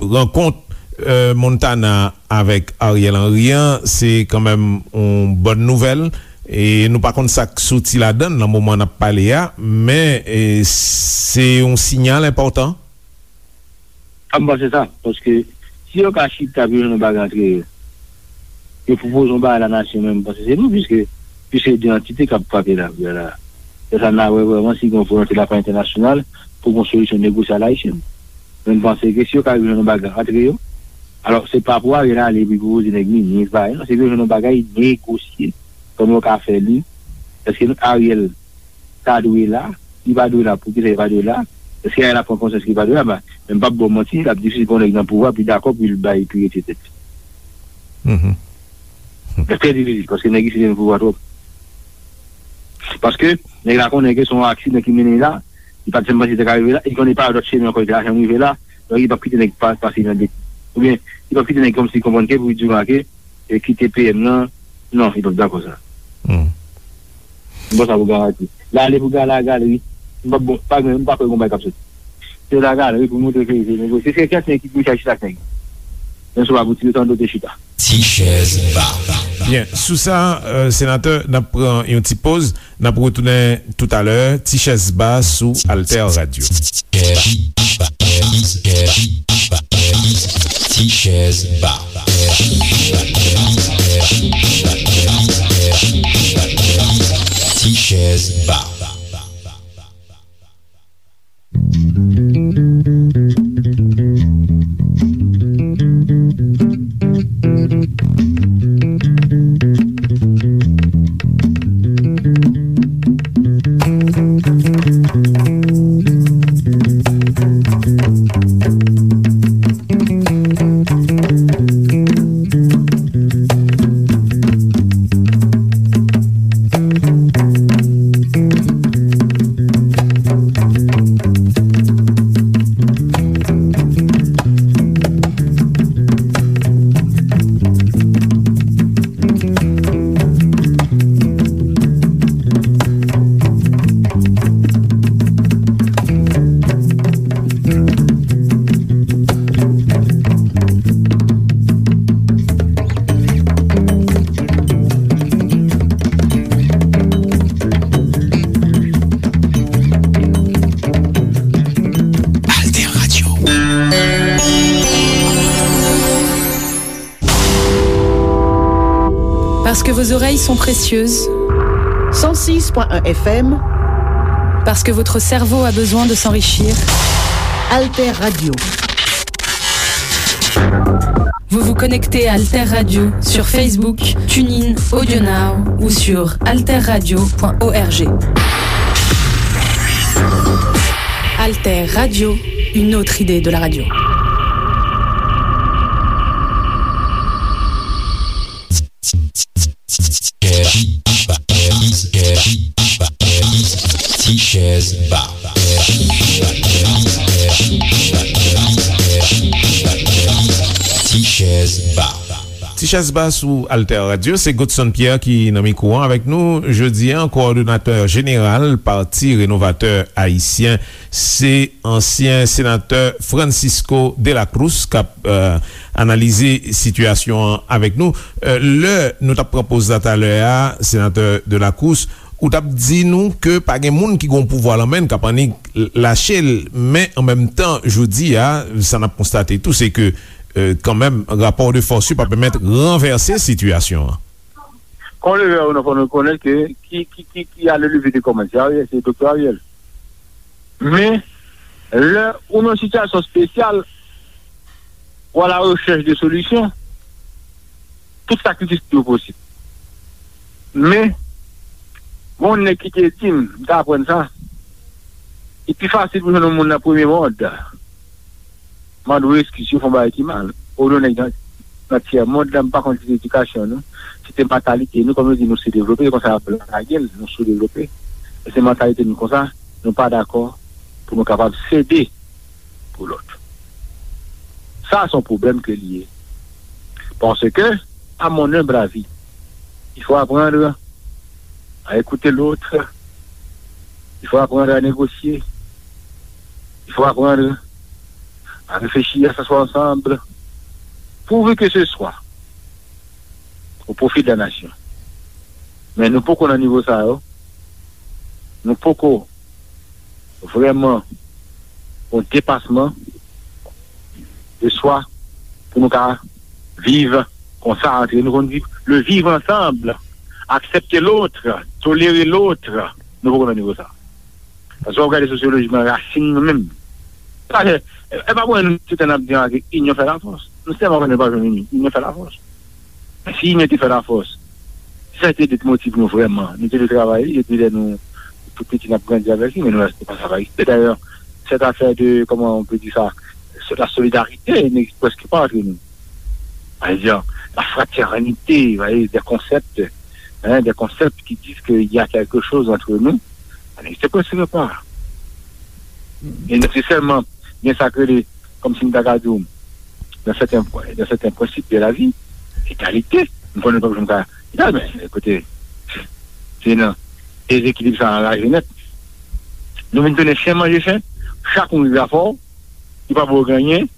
rankont, eh, Montana avèk Ariel Henry an, se kanmenm yon bòn nouvèl. E nou pa konn sa k soti ladan l nan moman n ap pale a, men, eh, se yon siyal enpòtan. A, m panse sa, paske si yo ka chita pou yo jwenn yon bagay antre yo, yo pwopoze yon bagay la nasyon menm, m panse se nou, piske, piske de antite k ap frape la, la. Se sa n a wè vrèman si gen yon volonte de la part entènasyonal pou gen yon solisyon negosye a la ayisyèn. Men m panse ke si yo ka rive jwenn yon bagay antre yo, alò se pa pou Ariel ale epi pwopoze nèg minis, bagay, non, se pou yo jwenn yon bagay negosye, kòman yo ka fè li, èske Ariel ta dwe la, li pa dwe la, poukisa li pa dwe la, èske Ariel ap pran konsyans ke li pa dwe la, men m p ap ba w manti, l ap difisil pou yon nèg nan pouvwa pi dakò pou l bay, pou retire tèt li. Mhm. Trè difisil, paske nèg isi te nan pouvwa twòp. Paske nèg la konnen ke se yon aksidan ki mennen li la, li pa t janm panse li te ka rive la, li konnen pa dòt chemen ankò li te ka janm rive la, donk li p ap kite nèg pa, pase nan de, oubyen li p ap kite nèg kòmsi konprann ke pou li di w ke e kite P M nan, non, li p ap dakò sa. Hmm. M pran sa pou garanti. L ale pou gala, galeri. M pa bon, pa gen, m pa kwè gon bagay k ap soti. Se la galeri pou montre ke se negosye. Se kèk nèg ki pou chita chita ak nèg. Men sou pa pou tire tande te chita. Ti chèz ba. Byen, sou sa, euh, senatè, n ap pran yon ti poz. N ap retounen toutalè, Ti chèz ba sou Alter Radio. Ti chèz ba. Ti chèz ba. Parce que vos oreilles sont précieuses. Cent six point un F M. Parce que votre cerveau a besoin de s'enrichir. Alter Radio. Vous vous connectez à Alter Radio sur Facebook, TuneIn, AudioNow ou sur alterradio point org. Alter Radio, une autre idée de la radio. Ti Chèz Ba. Ti Chèz Ba. Ti Chèz Ba sou Alter Radio, se Godson Pierre ki nan mikwo an avèk nou jodi a, kowòdonatè jeneral Pati Renovatè Ayisyen, se ansyen senatè Francisco de la Cruz k ap, euh, analize sitiyasyon an avèk nou. Euh, lè nou t ap pran poz la talè a, senatè de la Cruz, ou t ap di nou ke pa gen moun ki gen pouvwa lan men l k ap annik lache l, men an menm tan, jodi a, sa n ap konstate tou, se ke, euh, kanmenm, rapò de fòs yo pa pèmèt ranvèse sitiyasyon an. Kon leve a, nou fò nou rekonèt ke ki, ki, ki, ki a le lever de kòmanse, se Ariel, se Doktè Ariel. Men, lè ou nan yon sitiyasyon espesyal, ou a la rechèch de solisyon, tout sakrifis yo posib. Men, gon nèg ki te di m, m te aprann sa, li pi fasil pou jwenn yon moun nan premye mond. Mande w eskiz si w fè yon bagay ki mal. Ou yon nèg nan, nan tyè mond la, m pa konn si se edikasyon nou, si se mantalite nou, kòm yo di nou soudevlope, se konsa y ap lage l, nou soudevlope. E se mantalite nou konsa, nou pa dakò pou nou kapab sede pou lòt. Sa, se yon pwoblèm ke li ye. Paske, à mon humble avis, il faut apprendre à écouter l'autre, il faut apprendre à négocier, il faut apprendre à réfléchir, à s'asseoir ensemble, pourvu que ce soit au profit de la nation. Men nou poko nan nivo sa yo. Nou poko vrèman yon depasman de swa pou nou ka viv konsa antre nou, konn di le vivre ensemble, accepter l'autre, tolérer l'autre, nou poko nan nivo sa. Paske w ap gade sosyolojikman rasin nou menm. Sa fè, e pa pou nou tout tan ap di anke inyon fè lafòs. Nou sèlman konnen pa jwenn inyon, inyon fè lafòs. Men si inyon te fè lafòs, si sa te de motiv nou vrèman, nou te dwe travay li depi lè nou tou piti n ap grandi avèk li, men nou wè se pa sa pa egziste. Dayè, cette affaire de, comment on peut dire ça, la solidarité n'existe presque pas entre nous. Par exemple, la fraternité, vous voyez, des concepts, hein, des concepts qui disent qu'il y a quelque chose entre nous, ça n'existe presque pas. E nèsesèman, gen sa k rele, kòmsi m ta ka di w, dans certains points, dans certains principes de la vie, egalite. M konnen nou p ap janm ka egal, men, ekoute, se nan dezekilib sa anraje nèt. Nou vin tounen chen manje chen, chak moun rive afè w, li pa ba w anyen,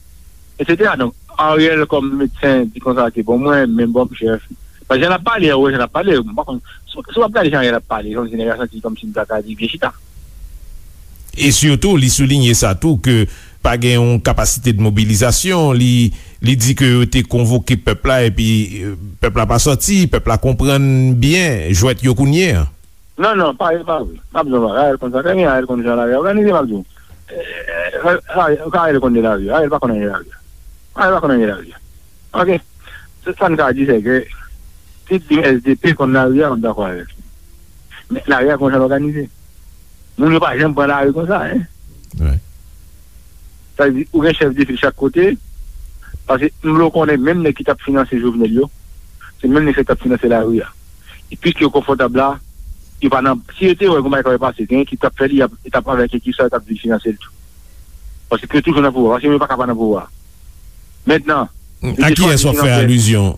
etsetera. Donk, Ariel, kòm medsen, di konsa ke bon, mwen menm, bon, m chèf. Paske jan l ap pale, ou wè jan l ap pale, m pa konn, si, si w ap gade jan Ariel ap pale, kòmsi nèg la santi kòmsi m ta ka di byen chita. E sitou, li soulinye sa tou, ke pa gen yon kapasite de mobilizasyon, li, li di ke yo te konvoke pèp la, epi, euh, pèp la pa sòti, pèp la konprann byen jwèt yo kounye a. Non, non, pa, e pa vre. M ap di w, Ariel konn sa trè byen, Ariel konn jan lari a òganize, m ap di w. Eh, eh, Ariel, Ariel konn de lari a, Ariel pa konn anyen de lari a. Ariel pa konn anyen de lari a. Ok? Se sa n ka di, se ke, tout di S D P konn lari a, m dakò avèk li. Men lari a konn jan l òganize. Moun yo pa janm pran lari konsa, en. Sa vle di, ou gen chèf de fil chak kote, paske m vle w konnen menm nèg ki t ap finanse Jovenel yo, se menm nèg sa yo t ap finanse lari a. E piske yo konfòtab la, yo pa nan, si yo te wè gon bagay k ap pase, gen ekip k ap fè li, y ap, y ap avèk ekip sa, yo t ap vin finanse l tou. Paske yo toujou nan pouvwa, paske yo pa ka pa nan pouvwa. Mentnan, a kiyès w ap fè alizyon?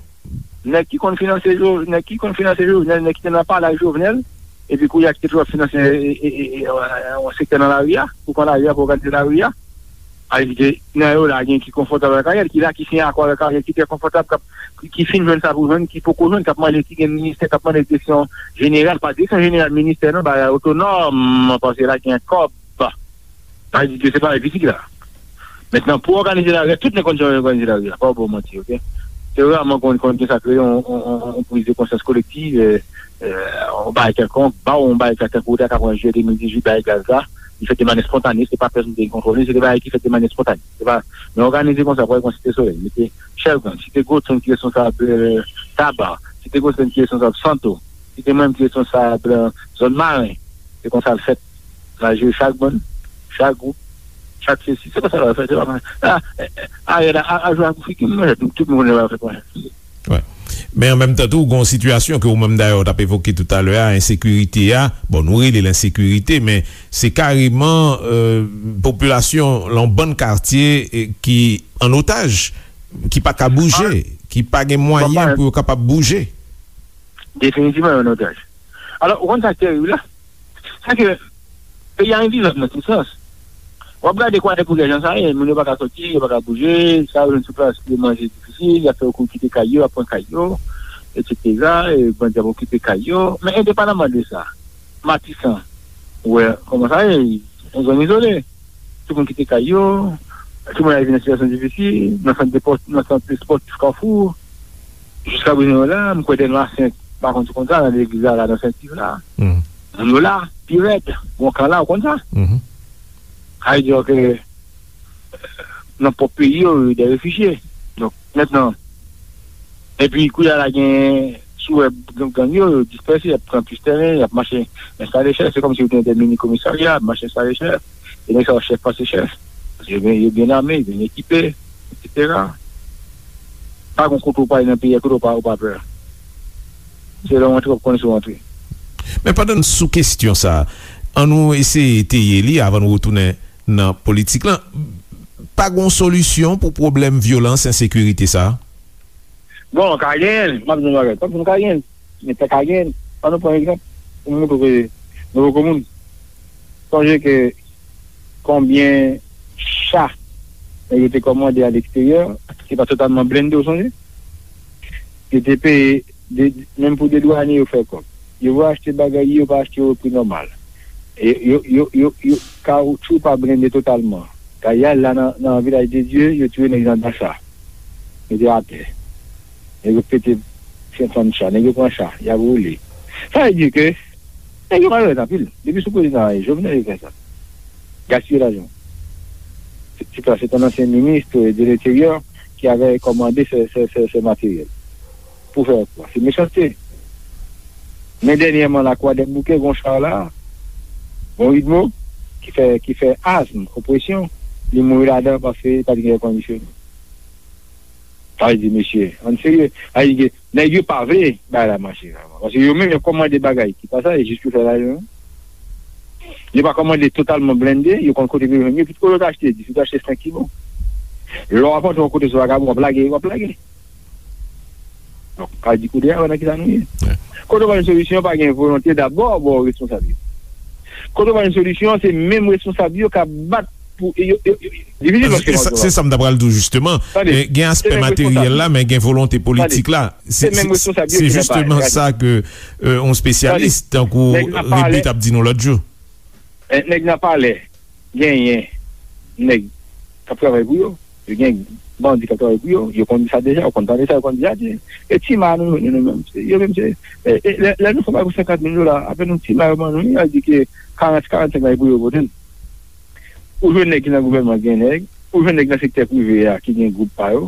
Nèg ki konn finanse Jo-, nèg ki konn finanse Jovenel, nèg ki te nan palè ak Jovenel, epi kounye a ki te toujou ap finanse, e, e, e, e, yon sektè nan lari a, pou pran lari a, pou òganize lari a. Sa vle di ke nan yo la, gen ki konfòtab avèk Ariel, ki la, ki siyen akò avèk Ariel, ki trè konfòtab, k ap, ki, ki fin jwenn sa pou jwenn, ki poko jwenn, k ap mande, ki gen ministè, k ap mande direksyon jeneral, pa direksyon jeneral ministè, non, bagay otonòm, paske la gen kòb. Sa vle di ke se pa pitit la. Mentnan, pou òganize lari a, tout nèg konn jan yo òganize lari a. Pa w ba w manti, ok? Se raman konn, konn gen sa k rele yon, yon, yon, yon priz de konsyans kolektiv, eh, eh, yon bagay kèlkonk, ba w yon bagay sa tankou w ta ka pran jiyè de mil dizuit, bagay gaz la, li fèt de manyè spontane, se pa pèsonn ki te kontwole, se de bagay ki fèt de manyè spontane. Se pa, men òganize konsa, pran Site Solèy, mete Chèlgann, Site Gwotenn ki responsab, eh, Taba, Site Gwotenn ki responsab Santo, Site mwen ki responsab, eh, zòn Maren. Se konsa l fèt. N a jere chak bann, chak gwoup, chak sesi. Se konsa l fèt, se pa mwen. A, eh, eh, Ariel a, a, a jwe ak figi m, mwen, tout, tout moun konnen l fèt mwen. Wi. Men an menm tan tou, gen yon sitiyasyon ke ou menm dayè w t ap evoke toutalè a, ensekirite a. Bon, nou rele l ensekirite, men se kareman, euh, popilasyon lan yon bann katye, eh, ki an otaj, ki pa ka bouje, ki pa gen mwayen pou yo kapab bouje. Definitivman, an otaj. Alò, ou konn sa k terib la? Sa ke peyi a envizab nan tout sans. W ap gade Kwadèboukè jan sa ye, moun yo pa ka soti, yo pa ka bouje, sa yo jwenn sou plas, yo manje difisil, y ap fè yo kouri kite kay yo, y ap pran kay yo, etsetera, e bandi ap okipe kay yo. Men endepandaman de sa, Matisan, ou wè kòman sa ye, yon zòn izole. Tout moun kite kay yo, tout moun al viv nan sitiyasyon difisil, nan sant de pòs-, nan sant espòtif Kafou. Jiska prezan yo la, m kwè dènye a senk, pa konn si konn sa, nan legliz la, la, nan Sentiv la. Moun yo la, pi rèd, gon kan la, ou konn sa. Sa vle di ke nan pwòp peyi yo, yo de refijye. Donk, mentnan, epi kounye a la gen, si w wè gang, gang yo, yo dispèse, y ap pran plis tèren, y ap mache enstale chèf. Se kòmsi yo te gen de mini komisarya, ap mache enstale chèf. E nèg sa yo chèf pase chèf. Paske yo byen, yo byen ame, yo byen ekipe, etsetera. Pa gen kote w prale nan peyi a, kote w pa, w pa pè. Se lè w antre, w ap konnen si w antre. Men pandan n sou kesyon sa a, ann nou eseye eteye li avan nou retounen nan politik lan. Pa gen yon solisyon pou pwoblèm vyolans, ensekirite sa a? Bon, ka genyen l, m ap di w yon bagay. Tankou nou ka genyen l, men pa ka genyen l. Ann nou pran egzanp, pou m montre w ke nou poko moun. Sonje ke konbyen cha nèg yo te kòmande a leksteryè, ki pa totalman blende, w sonje? Yo te peye, de, menm pou de dwanye yo fè kòb. Yo va achte bagay, yo pa achte yo pri nòmal. E yo, yo, yo, yo, kawoutchou pa blende totalman. Kay la nan, nan Vilaj de Dye, yo tire nèg nan Dasa. Mete atè. Nèg yo pete fè fann cha, nèg yo pran cha, y ap woule. Sa vle di ke nèg yo malonèt anpil. Depi sou prezidan Jovenel yo fè sa. Gaspiye lajan. Se, se, se un ancien ministre de l'Intérieur qui avait commandé ce, ce, ce, ce matériel. Pou fè kwa? Se mechanste. Men dènyèman la, Kwadèboukè, gon cha la, gon Widmo, ki fè, ki fè azm, opresyon, li mouri ladan paske pa t gen èkondisyonnen. Sa vle di, mesye, ann serye. Sa vle di ke nèg yo pa vle bagay la mache vrèman. Paske yo menm, yo kòmande bagay ki pa sa, e jis pou fè lajan. Yo pa kòmande totalman blende, yo konn kote pou yo jwenn yo, epi olye w ta achte dis, ou ta achte senk ki bon. Lè w ap antre yon kote sou vagabon, w ap lage, w ap lage. Donk, sa vle di kounye a, wè nan ki sa nou ye. Kote w pral jwenn solisyon, pa gen volonte dabò bò responsab yo. Kote w pral jwenn solisyon, se menm responsab yo k ap bat pou, yo, yo, yo, difisil paske se sa, se sa m ta pral di w, jisteman. Tande, eh, gen aspè materyèl la, men gen volonte politik la. Se, se menm responsab yo ki nan palè. Se jisteman sa ke, eh, yon espesyalis tankou Rebu t ap di nou lòt jou. Eh, nèg nan palè genyen nèg k ap travay pou yo. Yo gen bandi k ap travay pou yo. Yo konn di sa deja, yo konn tande sa, yo konn di sa. E ti ma nou, nou, nou menm, se, yo menm se, e, e, lè, lè nou fè bagay pou senkant mil dola, apèn yon ti ma yo ban nou, y a di ke karant, karannsenk la, e pou yo pote l. Ou jwenn nèg ki nan gouvènman gen nèg, ou jwenn nèg nan sektè prive a ki gen gwoup pa yo.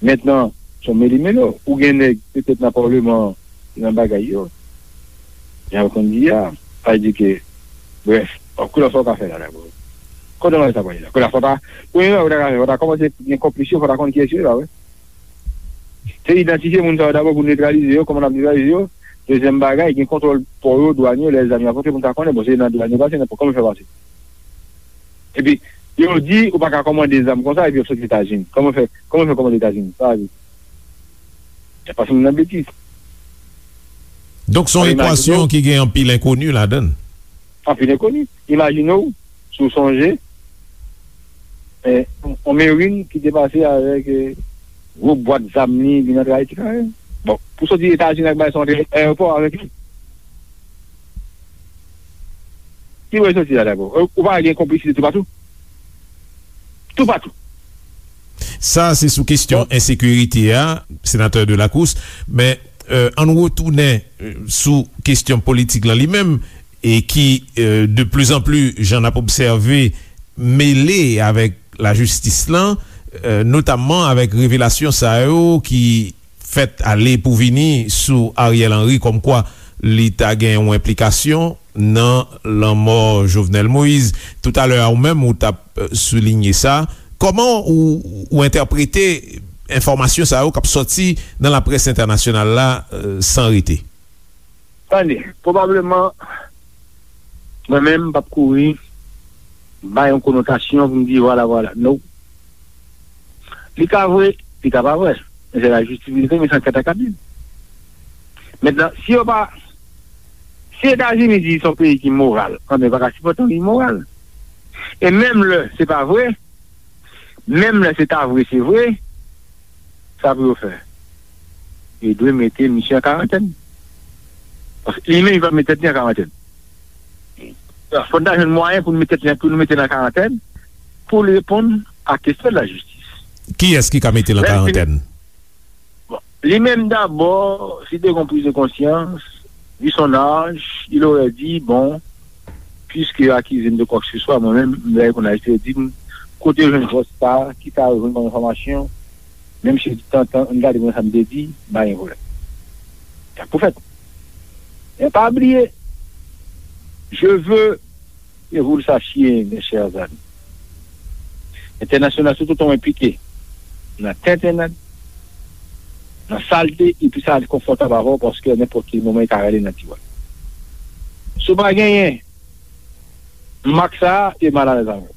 Mentnan, se yon meli melo. Ou gen nèg petèt nan palman an, ki nan bagay yo. Jan yo konn di a, sa vle di ke, brèf, kote sa w ka fè la dabò? Kote sa w pral la? Kote sa w ta, premye bagay ou ta ka fè, fò w ta kòmanse gen konplis yo, fò w ta konn kiyès yo ye la, wi. Se idantifye moun sa yo dabò pou netralize yo, kòman n ap netralize yo. Dezyèm bagay, gen kontwòl pò yo, dwàn yo, lè zam yo ap rantre pou n ta konnen, bon, se nan dwàn yo pase, nan pò, kòman yo fè pase? Epi, yo di, ou pa ka kòmande zam konsa, epi yo soti Etazini. Kòman fè, kòman fè kòmande Etazini? Sa vle di, y ap pase moun nan betiz. Donk, se yon ekwasyon ki gen anpil enkoni ladan l. Anpil enkoni. Imajine w, si w sonje, eh, yon Marine ki te pase avèk, eh, gwo bwat zam li, vin antre Ayiti, kanmenm. Bon, pou soti Etazini ak bagay sa, antre ayewopò avèk li. Ki bò l soti la dabò? Ou pa gen konplisite toupatou? Toupatou. Sa, se sou kesyon ensekirite a, senatè Delacroix, men, euh, ann retounen, euh, sou kesyon politik lan li menm, e ki, euh, de plus en plus, jan n ap obsève, mele avèk lajistis lan, euh, notamman avèk revelasyon sa yo ki fèt ale pou vini sou Ariel Henry, kòmkwa li ta gen yon enplikasyon nan lanmò Jovenel Moïse. Toutalè a, ou menm, ou t ap, euh, soulinye sa. Kòman ou, ou entèprete enfòmasyon sa yo k ap sòti nan laprès entènasyonal la, euh, san rete? Tande, pwobableman, mwen menm, m p ap kouri bay yon konotasyon pou m di, vwala, vwala. No. Li ka vre, li ka pa vre. Men se lajistis ki vle, men se anket la k ap di. Mentnan, si yo pa, si Etazini di se yon peyi ki moral, anben, yo pa ka sipòte yon imoral. E menm lè se pa vre, menm lè se ta vre, se vre, sa pou yo fè? Yo dwe mete misye an karantèn. Paske li menm, li pa mete tèt li an karantèn. Fò n ta jwenn mwayen pou n mete tèt li, pou nou mete l an karantèn, pou l reponn a kesyon de la jistis. Kiyès ki ka mete l an karantèn? Bon, li menm dabò, si te gen yon prise de conscience, vu son âge, il aurait dit, bon, puisque yo akize m de quoi que ce soit, mwen menm, m lè konn aji, yo di m, kote yo jwenn vòs sa, ki sa yo jwenn kòm enfòmasyon, menm si yo di tantan, ann gade mwen sa m te di, m pa gen pwoblèm. Sa pou fèt. E pa bliye, je veux que vous le sachiez, mes chers amis, entènasyonal, tout otan w enplike nan tentennad, nan salte, epi sa konfòtab avè w, paske nenpòt ki moman, e ka rale nan tiwa. Si w pa genyen mak sa a, e mal alèz avè w.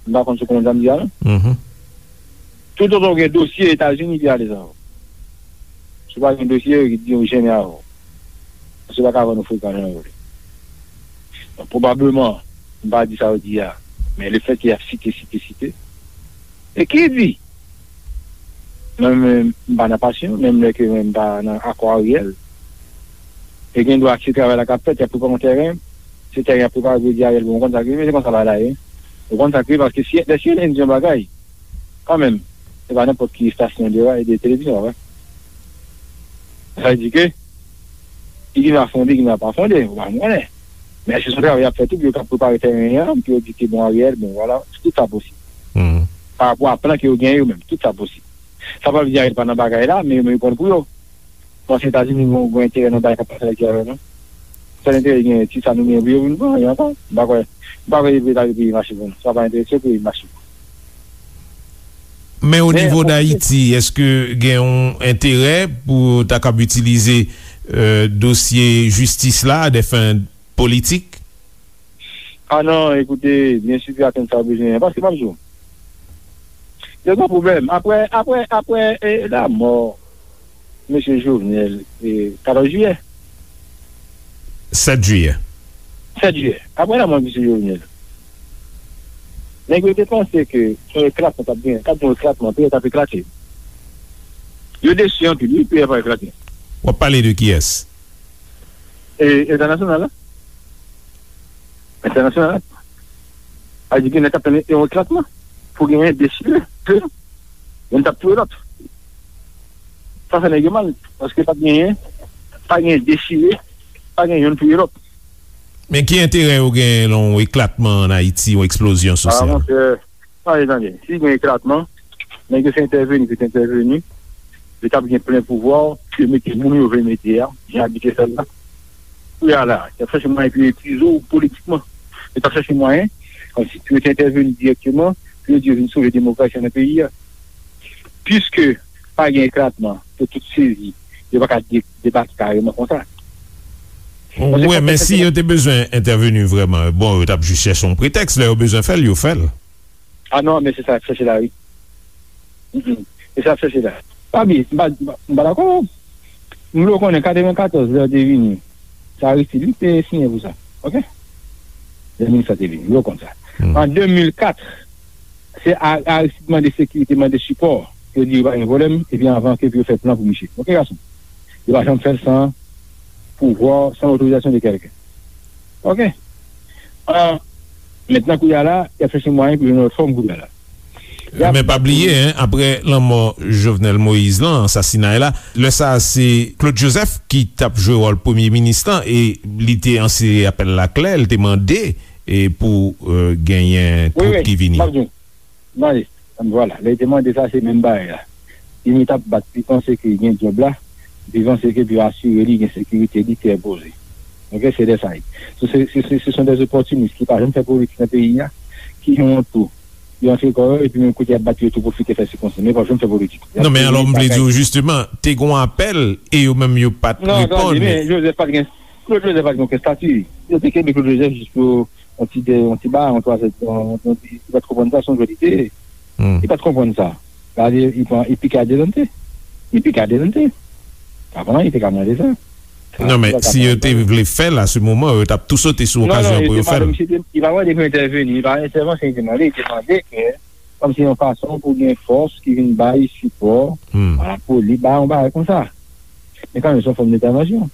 M pa konn si w konprann sa m di a, non? Tout otan w gen dosye Etazini, e alèz avè w. Si w pa gen dosye, yo di yo jennen avè w. Paske yo pa ka vann ou frekan jan yo vle. Donk, pwobableman, m pa di sa yo di a, men lefètke y ap site, site, site. E ki di? Mwen menm, m pa nan pasyon, menm lè ke mwen m pa nan akò Ariel. E gen dwa se travay la k ap fèt, y ap prepare yon tèren, se tèren y ap prepare pou yo di Ariel, bon, ou konn sa k rive, se konsa bagay la ye. Ou konn sa k rive, paske si, lè si N di yon bagay, kanmenm, se pa nenpòt ki estasyon de, de televizyon, wè. Sa vle di ke, li gen dwa fonde, li gen dwa pa fonde, ou pa konnen. Men èske se yon travay y ap fè tou, pou yo ka prepare tèren an, pou yo di ke, bon, Ariel, bon, vwala, tout sa posib. Pa rapò a plan ke yo genyen yo menm, tout sa posib. Sa pa vle di Ariel pa nan bagay la, men yo menm yo pran l pou yo. Paske Etazini gen yon enterè nan bagay k ap pase la ki avè nou. Sèl enterè li genyen, ti sa nou genyen pou yo vin pran, anyen ankò. M pa kwè, m pa kwè yo vle lage peyi mache pou nou. Sa pa enterese yo peyi mache pou nou. Men o nivo Dayiti, èske gen yon enterè pou ta kab itilize, euh, dosye jistis la a dè fen politik? Ah non, écoutez, bien sûr, attenn sa w bezwen an, paske m ap di w, yo gen pwoblèm. Apre, apre, apre, e, lanmò mesye Jovenel, e, katòz jiyè. Sèt jiyè. Sèt jiyè. Apre lanmò mesye Jovenel, nèg yo te panse ke yon eklatman t ap gen, t ap gen yon eklatman, peyi a t ap eklate. Yo desi anpil, wi, peyi a pa eklate. W ap pale de kiyès? E, entènasyonal la. Entènasyonal la. A di gen nèg k ap tann yon eklatman pou genyen dechire. Youn t ap touye lòt. Sa fè nèg yo mal, paske pa t genyen, pa genyen dechire, pa genyen youn touye lòt. Men ki enterè yo genyen nan yon eklatman ann Ayiti, yon eksplozyon sosyal? Ah, monchè, tande, tande. Si gen eklatman, nèg yo se entèveni, se entèveni. Yo t ap gen plen pouvwa, yo mete moun yo vle mete a, jan yo abitye fè l la. Kounye a la, y ap chèche mwayen pou yo epuize w politikman. Yo t ap chèche mwayen, kòmsi pou yo te entèveni dirèkteman, pou yo di yo vin sove demokrasi an nan peyi a. Piske pa gen eklatman, yo tout sezi, yo pa ka de-, debake kareman konsa. Wi, men si yo te bezwen entèveni vrèman, bon, yo t ap jis chèche yon pretèks, lè yo bezwen fè l, yo fè l. Ah non, men se sa y ap chèche la, wi. Mm, mm. Se sa y ap chèche la. Pa bliye, m pa, m pa, m pa dakò. M vle w konnen, katrevenkatòz, lè yo te vini, se Aristide wi ki te siyen pou sa. Oke? Lè minis la te vini, m vle w konn sa. An de mil kat, se A-, Aristide mande sekirite, mande sipò. Yo di yo pa gen pwoblèm, epi anvan ke pou yo fè plan pou misye. Oke, gason? Yo pa janm fè l san pouvwa, san otorizasyon de kèlken. Oke? Ah, mentnan, kounye a la, y ap chèche mwayen pou jwenn yon lòt fòm kounye a la. Men pa bliye, en, apre lanmò Jovenel Moïse lan, ansasinay la, lè sa a se Claude Joseph ki t ap jwe wòl premye minis lan, e li te anse apèl la klè, li te mande, e pou, euh, genyen twoup ki vini. Mande, vwala, lè li te mande sa, se menm bagay la. Li met ap bat, li panse ke gen djòb la, li panse ke pou asire li gen sekirite, li trè poze. Ok, se de sa. Se, se, se, se sont des opportunistes ki pa janm fè politik nan peyi a, ki gen yon tou. Yo antre kò yo, epi menm kote y ap bat yo tou pwofite fè sikonsi. Men pa janm fè politik. Non, men alò, m vle di w, jisteman, te gen yon apèl, e yo menm yo pa t reponn. Non, tande, men Joseph pa t gen, Claude Joseph pa t gen okenn estati. Yo te kenbe Claude Joseph jis pou yon ti, yon ti ba, yon twa zè, yon, yon ti, li pa t konprann sa, se yon jwè li te ye. Li pa t konprann sa. Gade, li pran, li pike adelante. Li pike adelante. Avan, li te ka mande sa. Non, men si yo te vle fè l a se moman, yo t ap tou sote sou okazyon pou yo fè l. Non, non, li pa mande pou entèveni, li pa entèvansyon li te mande, li te mande ke, kòmsi yon fason pou gen fòs ki vin bay sipò, pa rapò li bay yon bagay konsa. Men kanmenm, se yon fòm entèvansyon.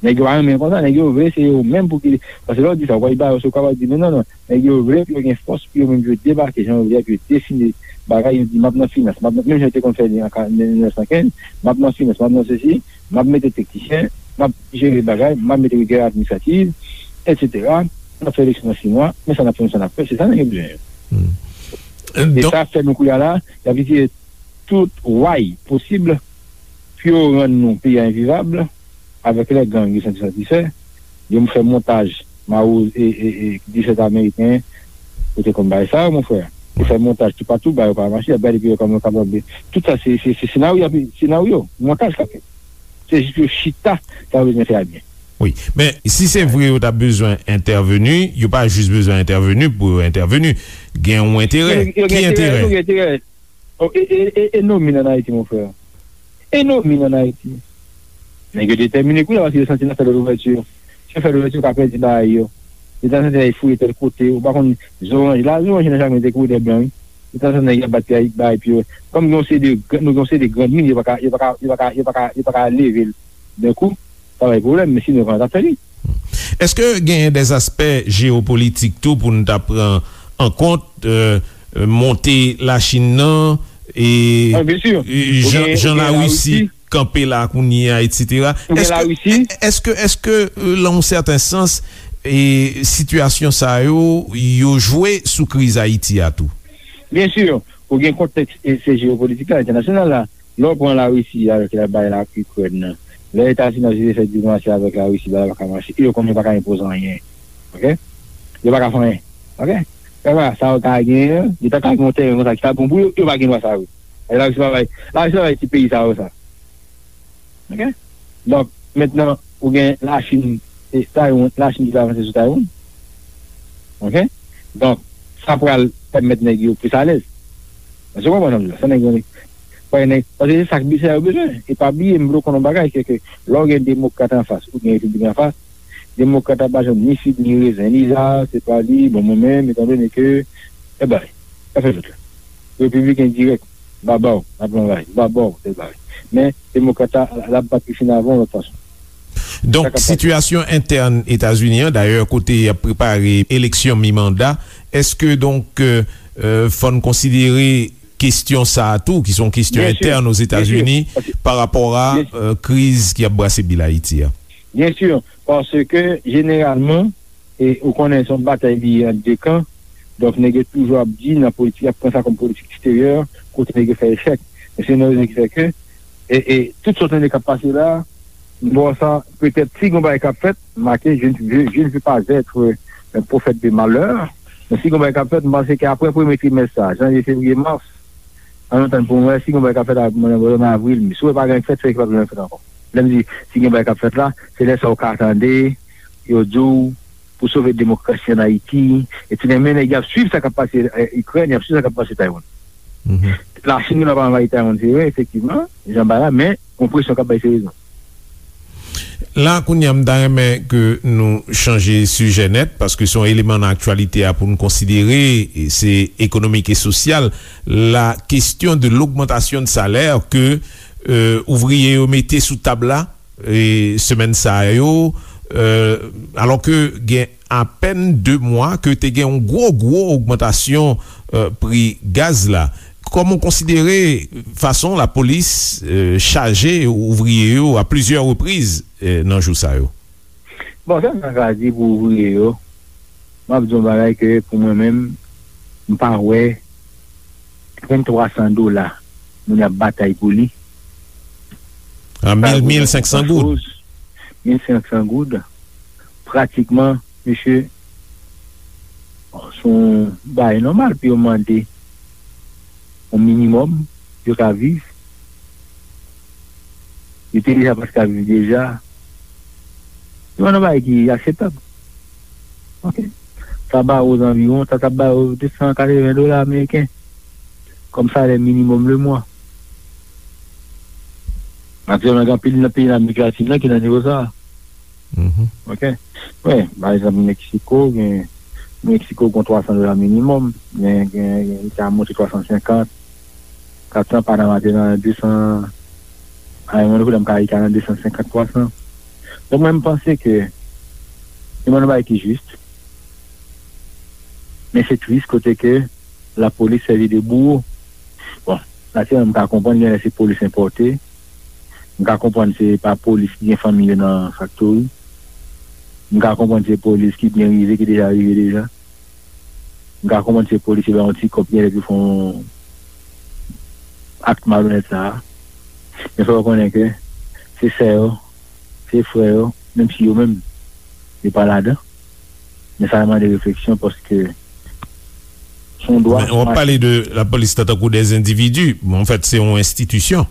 Nèg yo pa renmen konsa, nèg yo vle se yo menm pou ki, paske lè w di sa, w pral ba yo, se w kapab di, men non, non, nèg yo vle pou yo gen fòs, pou yo menm yo debake, jan yo vle, pou yo defini bagay, yo di, m ap nan finans, m ap nan, menm jan yo te konn fè li an ka-, mil nèf san kenz, m ap nan finans, m ap nan sesi, m ap mete teknisyen, m ap jere bagay, m ap mete rigè administrativ, etsetera. N ap fè eleksyon nan sis mwa, men sa n ap fè, men sa n ap fè, se sa nèg yo bezwen. E sa fè nou kounye a la, y ap itilize tout way posib pou yo rann nou peyi a envivab, avèk lè gang yo santi santi fè, yo fè montaj Mawozo e, e, e disèt ameriken, yo te konn bay sa, mon frè. Yo fè montaj toupatou, ba yo pa mache, y ap gade pou yo kòman yo kapab. Tout sa, se, se, se senaryo, senaryo, montaj k ap fèt. Se jis pou yo chita, sa yo bezwen fè a byen. Wi, men si se vre yo ta bezwen entèveni, yo pa jis bezwen entèveni pou yo entèveni. Gen yon enterè. Ki enterè? Yo gen enterè. Oh, e, e, e, e nomin ann Ayiti, mon frè. E nomin ann Ayiti. Nèg yo detèmine kounye a paske yo santi n ap fè lòt ouvèti. Si yo fè lòt ouvèti, yo ka pèdi bagay yo. Yo ta santi y fouye tèl kote, ou pa konn zoranj. La, zoranj nan jaden te kouvè de blan, wi. Yo ta santi nèg y ap bat bagay, bagay pye. Kòm gen yon seri de, nou gen yon seri de grann min, yo pa ka, yo pa ka, yo pa ka, yo pa ka, yo pa ka leve l. D'un coup, sa bay pwoblèm, men sinon, kòman t ap fè li? Èske genyen dèzaspè jewopolitik tou pou n ta pran an kont, euh, monte Lachin nan, e jan, jan Larisi kanpe la kounye a, etsetera? Èske, èske, èske, euh, nan yon sèten sans, e sitiyasyon sa yo, yo jwe sou kriz Ayiti a tou? Byen si, ou gen kontèks e se jewopolitik la, entènasyonal la. Lè w pran Larisi avèk la bay la Ikrèn nan, lè Etazini ap eseye fè diplomasi avèk Larisi, bagay pa ka mache, e yo konnen yo pa ka enpoze anyen. Ok? Yo pa ka fè anyen. Ok? Sa yo ka genyen, yo ta ka gen yon tèren konsa ki ta bon pou yo, yo pa gen dwa sa yo. E Larisi pa bay, Larisi pa bay ti peyi sa yo sa. Ok? Donk, mentnan, ou gen Lachin, e Taiwan, Lachin ki vle avanse sou Taiwan. Ok? Donk, sa pral pèmèt nèg yo plis alèz. Èske w konprann sa m di la? Sa nèg yo, paske nèg, paske se sa k, sa yo bezwen. E pa bliye, m vle w konn yon bagay, se ke lè w gen demokrat anfas, ou gen repibliken anfas, demokrat la pa janm ni fig ni rezen, li la, se pa li, bon, mwen menm, etandone ke, e bay, sa fè tout la. Repibliken dirèk, baba w, n ap anvayi, baba w, se bagay. Men, demokrat la, l ap bat pi fin avan yon lòt fason. Donk, sitiyasyon entèn Etazini an, dayè, kote y ap prepare eleksyon mi manda, èske, donk, euh, euh, fò n konsidere kesyon sa a tou, ki se yon kesyon entèn Ozetazini, pa rapò a, euh, kriz ki ap brase bil Ayiti a? Byen si, paske, jeneralman, e ou konnen se yon batay li ye ant de kan. Donk, nèg yo toujou ap di nan politik, y ap pran sa kòm politik eksteryè, kote nèg yo fè echèk. Men se yon rezon ki fè ke, e, e tout sa w tande k ap pase la, m ba w sa, petèt, si gen yon bagay k ap fèt, make, je ne, je, je ne veux pas être un prophète de malheur, men si gen yon bagay k ap fèt, m panse ke apre premye trimès sa, janvye, fevriye, mas, ann atann pou m wè si gen yon bagay k ap fèt nan avril, me. Si w wè pa gen anyen k fèt, se ke pa gen anyen k fèt ankò. Lè m di, si gen bagay k ap fèt la, se lè sa w ka tande, yo di w, pou sove demokrasi ann Ayiti, etsetera. Men nèg y ap swiv sa k ap pase, eh, Ikrèn, y ap swiv sa k ap pase Taiwan. Lachin genlè pa anvayi Taiwan, se vre, efektivman, jan bay la, men gon presyon k ap bay serye. La, kounye a, m ta renmen ke nou chanje sijè nèt, paske se yon eleman nan aktyalite a pou n konsidere, e se ekonomik e sosyal, la question de l'augmentation de salaire ke, euh, ouvriye yo mete sou tab la, e semèn sa yo, euh, alò ke gen apèn de mwa ke te gen yon gwo, gwo ogmantasyon, eh, pri gaz la. Kòman w konsidere fason lapolis, eh, chaje ouvriye yo a plizyè repriz, eh, nan jou sa yo? Bon, sa m ta ka di pou ouvriye yo, m ap di yon bagay ke pou mwen menm, m pa wè venntrwa san dola moun ap batay pou li. A mil, mil senk san goud. Mil senk san goud. Pratikman, mesye, se yon bagay nòmal pou yo mande yon minimòm pou yo ka viv. Yo te deja pa t ka viv deja. Se yon bagay ki akseptab. Ok. Sa ba yo zanviwon, sa t ap ba yo de san katreven dola ameriken kòm salè minimòm le mwa. Aktyèlman, gen anpil nan peyi Amerik Latin nan ki nan nivo sa a. Mhm. Ok. Wi, pa egzanp, Meksiko, gen, Meksiko gen twa san dola minimòm, gen, gen, gen, li ka monte twa san senkant, kat san, Panama te nan de san, a yon moman donk, m ka, li ka nan de san senkant, twa san. Donk, mwen, m panse ke se yon bagay ki jis, men se tris kote ke lapolis sèvi de bouwo. Bon, natirèlman, m ka konprann, gen lè se polis enpòte, m ka konprann se pa polis ki gen fanmi yo nan faktori. M ka konprann se polis ki byen rive, ki deja rive deja. M ka konprann se polis yo ba yon ti kòb, gen lè pou fè yon ak malonèt sa a. Men fò yo konnen ke se sè yo, se frè yo, menm si yo menm, yo pa ladan. Men sa mande refleksyon paske se yon dwa. Men w ap pale de lapolis tankou de endividi. Bon, anfèt, se yon enstitisyon.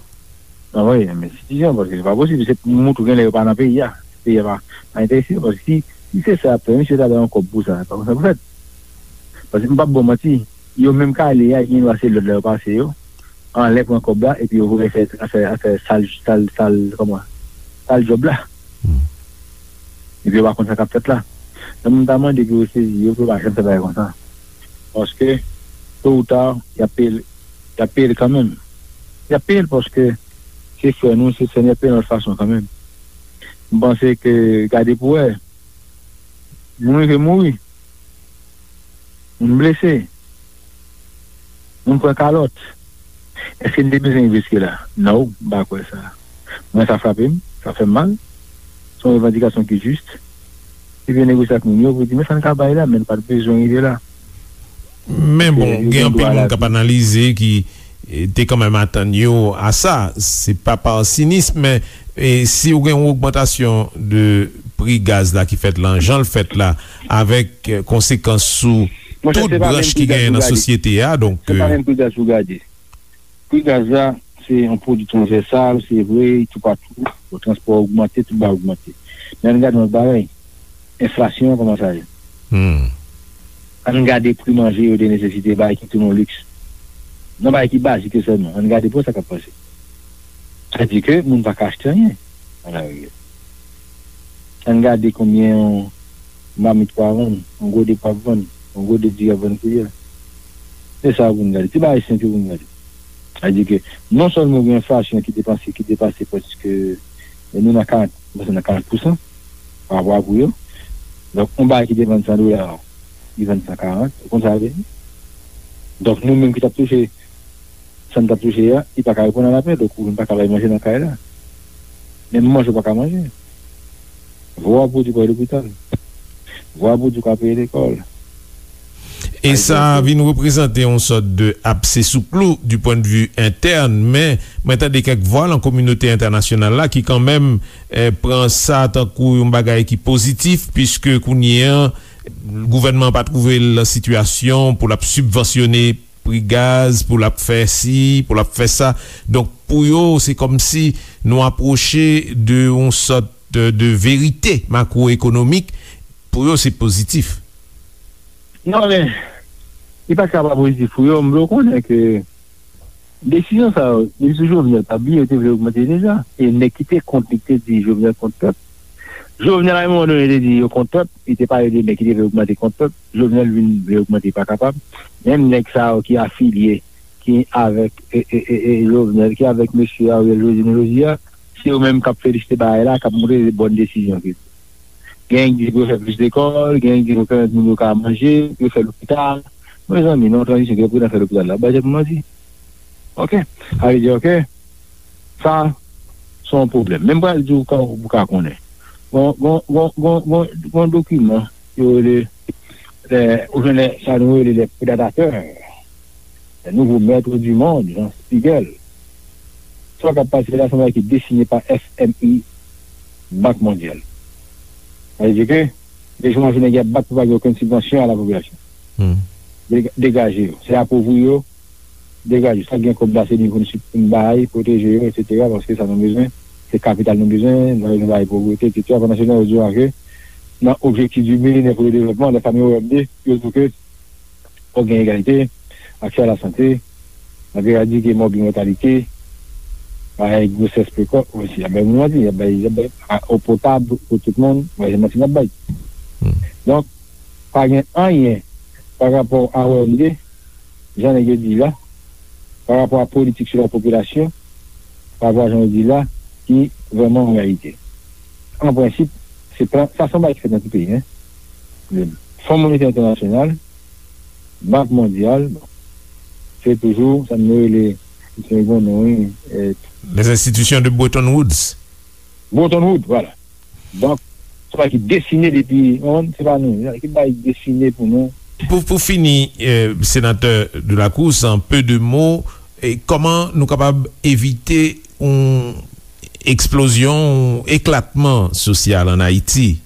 Nan, wi, men enstitisyon, paske se pa posib. Se pou moutou gen lè yo pa nan peyi a. Peyi a pa, pa enterese yo, paske si, si se sa y ap fè, misye ta bay yon kòb pou sa. Se pa konsa pou fèt. Paske m p ap ba w manti, yo menm k ale a, gen dwa se lòd la yo pase yo, anlè pran kòb la, epi yo voye fè, fè, fè sal, sal, sal, kòman? Sal djòb la. Hmm. Epi yo pa konn sa k ap fèt la. Donk, m ta mande pou yo sezi yo, pou yo pa janm fè bagay konsa. Paske, to ou ta, y ap peye l, y ap peye l kanmenm. Y ap peye l paske se frè nou, se sè nou, y ap peye l yon lòt fason kanmenm. M panse ke, gade pou wè, moun rive mouri, moun blese, moun pran kalòt. Èske n te bezwen rive jiske la? Non, m pa kwè sa. Mwen, sa frape m, sa fè m mal. Se yon revandikasyon ki jis. Epi yo negosye ak moun yo pou di, men sa n ka bay la, men n pa t bezwen rive la. Men bon, gen anpil moun k ap analize ki, eh, te kanmenm atann yo a sa. Se pa pa sinis, men, eh, si w gen yon ogmantasyon de pri gaz la ki fèt la, jan l fèt la, avèk, eh, konsekans sou tout branch ki genyen nan sosyete a, donk, se pa menm pri gaz pou gade. Pri gaz la, se yon pwodui transvèsal, se vre, toupatou, bon, transpò ogmante, tout bagay ogmante. Men ann gade yon lòt bagay, enflasyon an kòman sa ye. Hmm. Ann gade pri manje yo de nesesite, bagay ki tounen yon liks. Nan bagay ki bazik yo sèlman, ann gade pou sa k ap pase. Sa di ke moun pa ka achte anyen nan lari a. Ann gade konbyen yon mamit pou ap vann, yon gode pou ap vann, yon gode diri ap vann kounye a. Se sa pou n gade. Ti bagay senp yo pou n gade. Sa di ke non sèlman gen enflasyon ki depanse, ki depase prèske, nou nan karant, nou nan karant pousan pa rapò a pri yo. Donk, yon bagay ki te vann san dola, li vann san karant, ou konn sa vle di? Donk, nou menm ki t ap touche sa n t ap touche a, li pa ka reponn a lapèl, donk ou menm pa ka bay manje nan kay la. Menm manje ou pa ka manje. Vwa pou di pou al lopital. Vwa pou di pou al peye lekòl. E sa vin reprezante yon sòt de abse sou klou du point de vue interne, men mwen tande kèk vwa nan kominote entènasyonal la ki kanmenm, eh, pran sa tankou yon bagay ki pozitif, piske kounye a, gouvènman an pa twouve l nan sitiyasyon pou l ap sibvansyone pri gaz, pou l ap fè si, pou l ap fè sa. Donk, pou yo, se kòmsi nou apwoche de yon sòt de, de verite makwoekonomik. Pou yo, se pozitif. Non, men, li pa ka pa pozitif pou yo. M vle w konnen ke desizyon sa yo, depi sou Jovenel, pa bliye, yo te vle ogmante deja. E nèg ki te kont li, ki te di Jovenel kont pèp. Jovenel, a yon moman donnen, te di yo kont pèp, li te pale de nèg ki te vle ogmante kont pèp. Jovenel vin vle ogmante, pa kapab. Menm nèg sa yo ki afilye, ki avèk, e, e, e, e, Jovenel, ki avèk mesye Ariel jodi, nou jodi a, se yo menm k ap felisite bagay la, k ap montre se bòn desizyon ke. Gen ki di pou yo fè plis lekòl, gen ki di pou yo pèmèt moun yo ka manje, pou yo fè lopital. Mezanmi, nan yon tranzisyon ki reprezante lopital la, bay tèt nou manti. Ok? Sa vle di, ok, sa, se yon pwoblèm. Men m pral di w ka, ou ka konnen. Gon, gon, gon, gon, gon, gon dokiman yo rele, eh, ou konnen sa nou rele les prédateurs, les nouveaux maîtres du monde, Jean Spiegel. Sa k ap pase la, se yon bagay ki desine pa F M I, Bank Mondyal. Sa vle di ke, de jou an jou, nèg y ap bat pou pa gen okenn sibvansyon a la popilasyon. Hmm. Dega-, degaje yo. Se apovri yo, degaje yo. Sa k gen kòb la, se li pou n sip-, pou n bay, pwoteje yo, etsetera, paske sa nou bezwen, se kapital nou bezwen, nou bay povrete, etsetera. Pandan se tan, yo di w ke nan objektif du millénaire pour le développement, lè sa nou wè de, yo di w ke fòk gen egalite, aksè a la sante, n ap eradike mòbid mòtalite, bay gwosès prekòs osi, y ap bay moun manti, y ap bay, y ap bay a, eau potable pou tout moun, bay se manti n ap bay. Hmm. Donk, pa gen anyen pa rapò a O M D, jan nèg yo di la, pa rapò a politik sou la popilasyon, pa rapò a jan yo di la, ki vrèman an reyalite. An prensip, se plan, sa se yon bagay ki fèt nan tout peyi, en. Fon Monetè Entènasyonal, Bank Mondyal, bon, se toujou, sa nou rele, se yon non, wi, eh, Les institutions de Bretton Woods. Bretton Woods, vwala. Donk, se pa ki desine depi, on, se pa nou, se pa ki bay desine pou nou. Pou, pou fini, eh, senatè Delacroix, an pe de mo, eh, kòman nou kapab evite yon eksplozyon, yon eklatman sosyal ann Ayiti?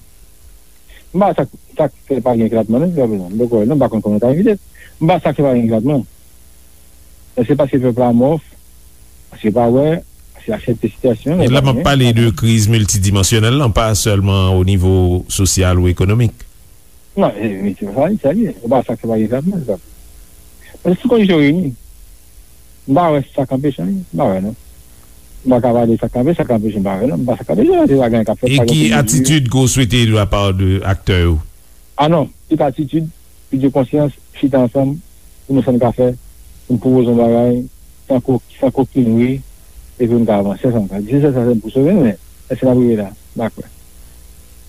M pa sa, sa k fè pa gen eklatman, non, jiskaprezan. M poko wè, non, m pa konn kòman ta evite. M pa sa k fè pa gen eklatman. Èske paske pèp la amòf? Paske pa wè, paske aksepte sitiyasyon, e la m ap pale de kriz miltidimansyonèl lan, pa sèlman o nivo sosyal ou ekonomik. Non, e, e, se pa sa, sa li ye. Se pa sa k fè pa gen eklatman, sa. Paske sou kondisyon reyini, m pa wè sa k anpeche anyen. M pa wè, non. M pa ka pale sa k anpeche, sa k anpeche, m pa wè, non. M pa sa k anpeche, se pa gen k ap fèt, e pa gen ki atitid ke w swete de la pa de aktè yo? Ah non, tout atitid, pran konsyans, chita ansanm, pou nou sa n ka fè, pou n pwopoze yon bagay, san ko-, san kokinri, epi pou n ka avanse ansanm. Se sèl sa pou sove, men èske n ap rive la? M pa kwè.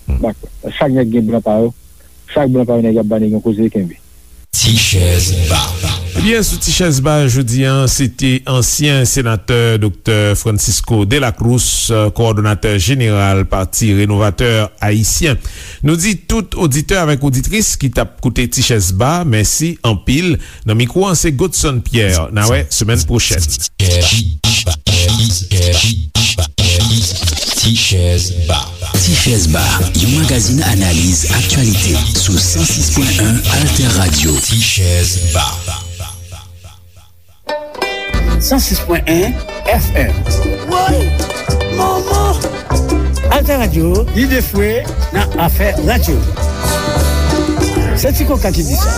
M pa kwè. Chak nèg gen blan pa yo, chak blan pa yo nèg y ap ba nèg yon koze kenbe. Ti chèz ba. Ebyen, sou Ti chèz ba jodi a, se te ansyen senatè Doktè Francisco Delacroix, kowòdonatè jeneral Pati Renovatè Ayisyen. Nou di tout oditè avèk oditris ki t ap koute Ti chèz ba, mèsi anpil. Nan mikwo an, se Godson Pierre. N a wè semèn pwochèn. Ti chèz ba. Ti chèz ba, yon magazin analiz aktyalite sou san sis pwen en Alter Radio. Ti chèz ba. San sis pwen en F M. Woy! Manman! Alter Radio, lide fwe nan afè radyo. Se Ti Koka ki di sa.